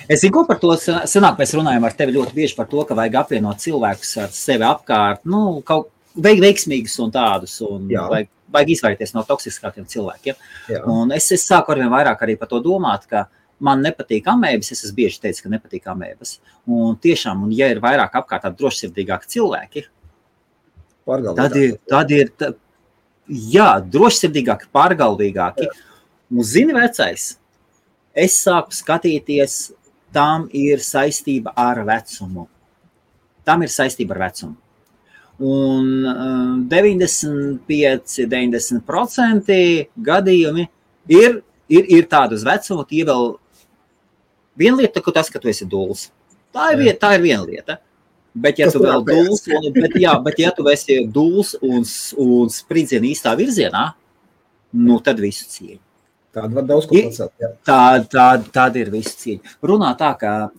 Es zinu, ko par to senāk mēs runājam ar tevi ļoti bieži par to, ka vajag apvienot cilvēkus ar sevi apkārt, nu, kaut veiksmīgus un tādus, un vajag izvairīties no toksiskākiem cilvēkiem. Jā. Un es sāku arvien vairāk arī par to domāt, ka man nepatīk amēbas, es esmu bieži teicis, ka nepatīk amēbas. Un tiešām, un ja ir vairāk apkārt tādi drošsirdīgāki cilvēki, tad ir drošsirdīgāki, pārgalvīgāki. Un zini, vecais, es sāku skatīties, tam ir saistība ar vecumu. Un 95–90% gadījumi ir tādi uz vecumu, tie vēl viena lieta, tas, ka tu esi duls. Tā ir viena lieta. Bet ja tu vēl duls, bet ja tu esi duls un spridzien īstā virzienā, nu tad visu cieņu. Tāda var daudz ko pacelt. Tāda ir visu cieņa. Runā tā, ka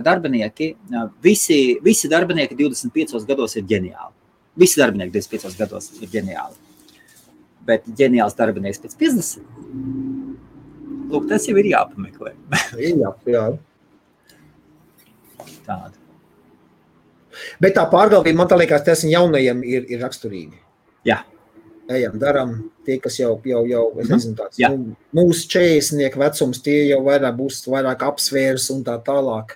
darbinieki, visi darbinieki 25 gados ir ģeniāli. Visi darbinieki 25 gados ir ģeniāli. Bet ģeniāls darbinieks pēc 50. Lūk, tas jau ir jāpameklē. Jā. Tāda. Bet tā pārgalvība, man tā liekas, tas jaunajiem ir raksturīgi. Jā. Ejam, daram, tie, kas jau es nezinu tāds, mūsu 40 vecums, tie jau būs vairāk apsvērs un tā tālāk.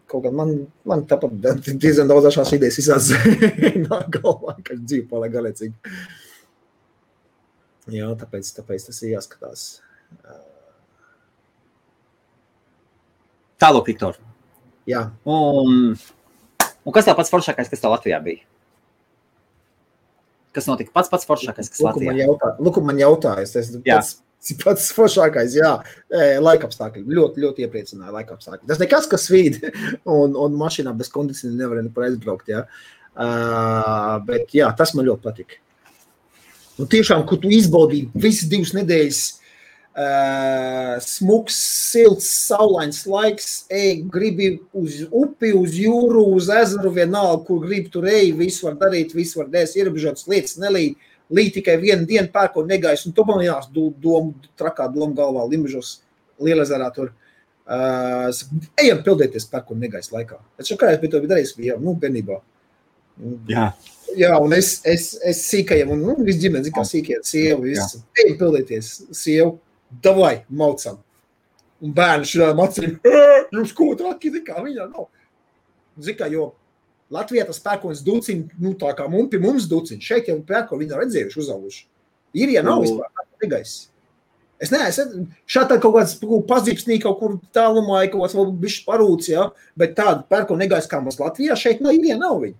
Kaut kā man tāpat diezgan daudz šās idejas izsāc nāk galvā, ka dzīve paliek galēcīgi. Jā, tāpēc tas ir jāskatās. Tālāk, Viktor. Jā. Un kas tā pats foršākais, kas tā Latvijā bija? Kas notika pats foršākais, kas Latvijā? Luku man jautājas, tas pats foršākais, jā, laikapstākļi, ļoti, ļoti iepriecināja laikapstākļi. Tas nekas, kas svīd, un mašīnā bez kondicioni nevar nekur aizbraukt, jā. Bet jā, tas man ļoti patika. Un tiešām, kur tu izbaudīji visas 2 nedēļas, smuks, silts, saulains laiks, gribi uz upi, uz jūru, uz ezeru, vienalga, kur gribi tur visu var darīt, visu var dēs, ierobežotas lietas, līd tikai vienu dienu pērko negais, un tu man jās trakā doma galvā, Limbažos, Lielezerā tur. Ejam pildēties pērko negais laikā. Es kā es biju to darījis, bērnībā. Jā. Jā, un es sīkajam, un viss ģimeni, kā sīkajam, sievu, visu. Ejam pildēties, sievu. Davai, maucam. Un bērni šādām acīm, jūs ko traki, kā viņā nav. Zikā, jo Latvijā tas pērkonis duciņ, tā kā pie mums duciņ, šeit jau pērkoni viņi redzējuši, uzauguši. Ir, ja nav vispār pērkoni negais. Es neesmu, šādā kaut kāds pazīpsnī kaut kur tālumā, kaut kāds vēl bišķi parūts, jā, bet tāda pērkoni negais kā mums Latvijā, šeit nav, ir, ja nav viņi.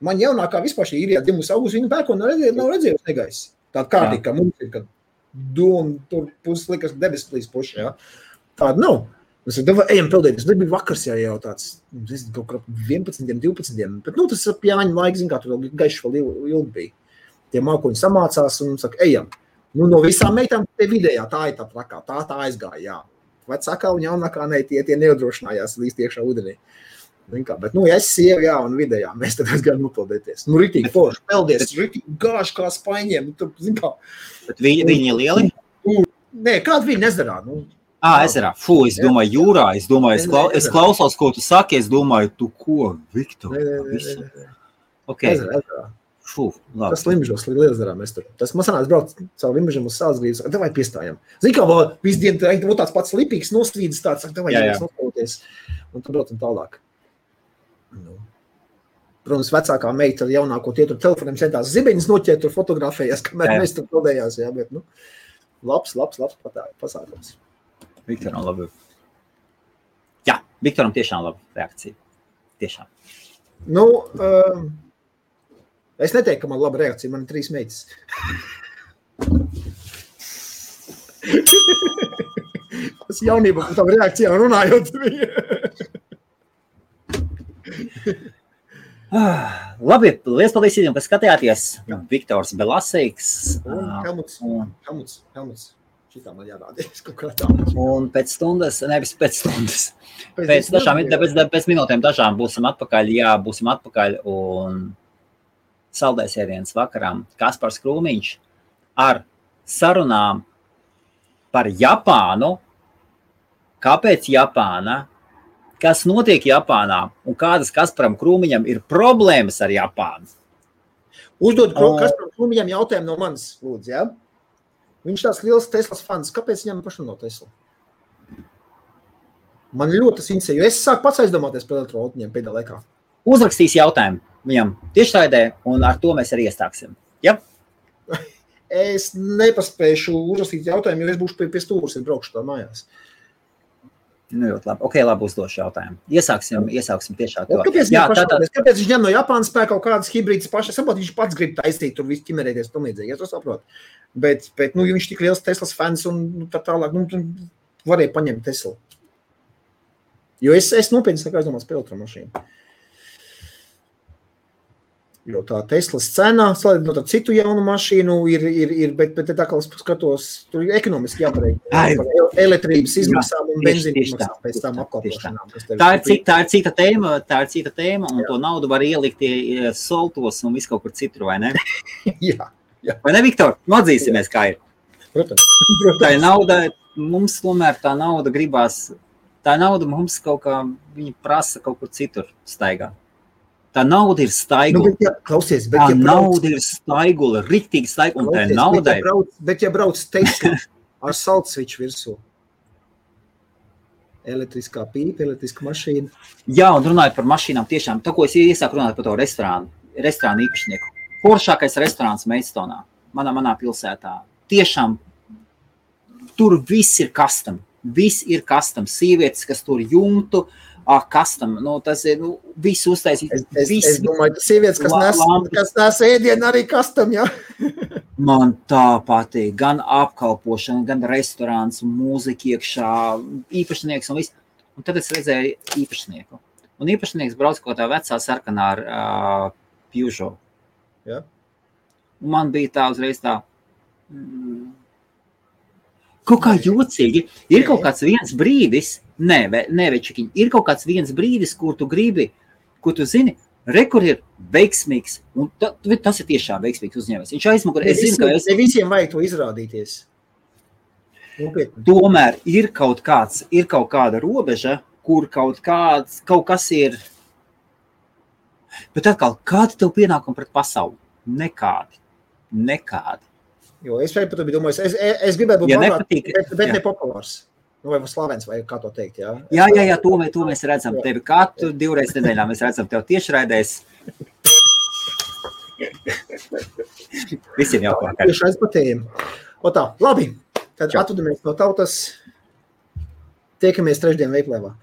Man jaunākā vispār šī ir, ja dzimus augusi, viņa pērkoni nav redzējuši negais. Tāda kārtīgi, kā mums ir, kad un tur puses likas debesplīs puši, jā. Tāda nav. Es saku, ejam pildēties. Tas bija vakars jau tāds, kaut kā 11, 12, bet tas ir Jāņa laiks, kā tur vēl gaišs vēl ilgi bija. Tie mākoņi samācās un saka, ejam. No visām meitām te vidējā, tā ir tā trakā, tā aizgāja, jā. Vecākā un jaunākā ne, tie neuzdrošinājās līst iekšā ūdenī. Bet, ja es sievu, jā, un vidējā, mēs tad gaidām nopildēties. Ritīgi forši, peldies, ritīgi gāši kā spaiņiem. Tur, kā. Bet viņi ir lieli? Nē, kāda viņi ezerā? Ezerā. Es domāju, jūrā. Es klausos, ko tu saki. Es domāju, tu ko, Viktor? Nē. Okay. Ezerā. Labi. Tas Limbažos, Lielezerā mēs tur. Tas man sanāca brauc caur Limbažam uz Sālsgrīvas. Davai piestājam. Zini, kā vēl visu dienu tāds pats lipīgs nostrīdis tāds. Davai nostrīdēties. Un tur braucam tālāk. Protams, vecākā meita ar jaunāko tie tur telefoniem centās zibeņas noķēt, tur fotografējās, kamēr mēs tur pildējās, jā, bet, labs pasākums. Viktoram labi. Jā, Viktoram tiešām laba reakcija. Tiešām. Es neteiktu, ka man laba reakcija, man ir 3 meitas. Tas jaunība par tām reakcijām runājot bija. Labi, liels paldies visiem, kas skatījāties. Viktors Belasīgs. Helmuts. Šitā man jārādīs kaut kā tā. Un pēc stundas, nevis pēc stundas, pēc minūtēm dažām būsim atpakaļ un saldais ēdienas vakarām Kaspars Krūmiņš ar sarunām par Japānu, kāpēc Japāna, kas notiek Japānā un kādas Kasparam Krūmiņam ir problēmas ar Japānu. Uzdod Kasparam Krūmiņam jautājumu no manis, lūdzu, jā? Viņš tās liels Teslas fans. Kāpēc viņam pašam no Tesla? Man ļoti tas interesē, jo es sāku pats aizdomāties par elektroautoņiem pēdējā laikā. Uzrakstīs jautājumu viņam tiešraidē, un ar to mēs arī iestāksim. Ja? Es nepaspēšu uzrakstīt jautājumu, jo es būšu pie stūras, ja braukšu tā mājās. Nu, ļoti labi. Ok, labi uzdošu jautājumu. Iesāksim tiešā to. Kāpēc viņš ņem no Japānas spēk kaut kādas hibrīdas pašas? Saprot, viņš pats grib taisīt, tur viss ķimerēties, tam līdzīgi, ja to saprot. Bet nu, ja viņš tik liels Teslas fans un tā tālāk, nu, varēja paņemt Teslu. Jo es nopietni sāku aizdomās par elektromašīnu. Jo tā Teslas cena, salīdzinot ar citu jaunu mašīnu, ir bet tā kā es skatos, tur ir ekonomiski jāpareik par elektrības izmaksām un benzīnu izmaksām pēc tām apkalpošanām. Tā ir cita tēma, un to naudu var ielikt soltos un visu kaut kur citur, vai ne? Jā. Vai ne, Viktor? Atzīsimies, kā ir. Protams. Tā ir nauda, mums tomēr tā nauda gribās, tā nauda mums kaut kā, viņi prasa kaut kur citur staigā. Tā nauda ir staigula. Nauda ir staigula, riktīgi staigula, un tā ir naudai. Bet ja brauc Tesla ar saltsviču virsū, elektriskā pīpa, elektriska mašīna. Jā, un runājot par mašīnām tiešām, tā, ko es iesāku runāt par to restorānu īpašnieku. Foršākais restorāns Maidstone, manā pilsētā. Tiešām, tur viss ir custom. Viss ir custom. Sievietes, kas tur jumtu, custom, tas ir, viss uztaisīt. Es domāju, ka sievietes, kas nes ēdienu, arī custom, jā? Man tā patīk, gan apkalpošana, gan restorāns, mūzika iekšā, īpašnieks un viss. Un tad es redzēju īpašnieku. Un īpašnieks brauc kaut tā vecā sarkanā ar Peugeot. Jā. Un man bija tā uzreiz tā, kaut kā jocīgi. Ir kaut kāds viens brīdis, Večukiņ, ir kaut kāds viens brīdis, kur tu gribi, kur tu zini, kur ir veiksmīgs, un tas ir tiešām veiksmīgs uzņēmējs. Viņš aizmugur, es zinu, ka ne visiem vajag to izrādīties. Tomēr ir kaut kāda robeža, kur kaut kas ir, bet atkal, kādi tev pienākumi pret pasauli? Nekādi. Jo es par to biju domājis, es gribētu būt bagāts, bet ne populārs. Nu, vai slavens, vai kā to teikt, jā? Jā, to mēs redzam. Tevi katru 2 reizes nedēļā mēs redzam tev tiešraidēs. Visiem jau vakar. Tiešrais patējiem. O tā, labi. Tad atvedamies no tautas. Tiekamies trešdien veiklēvā.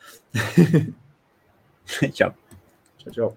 Čau. Čau.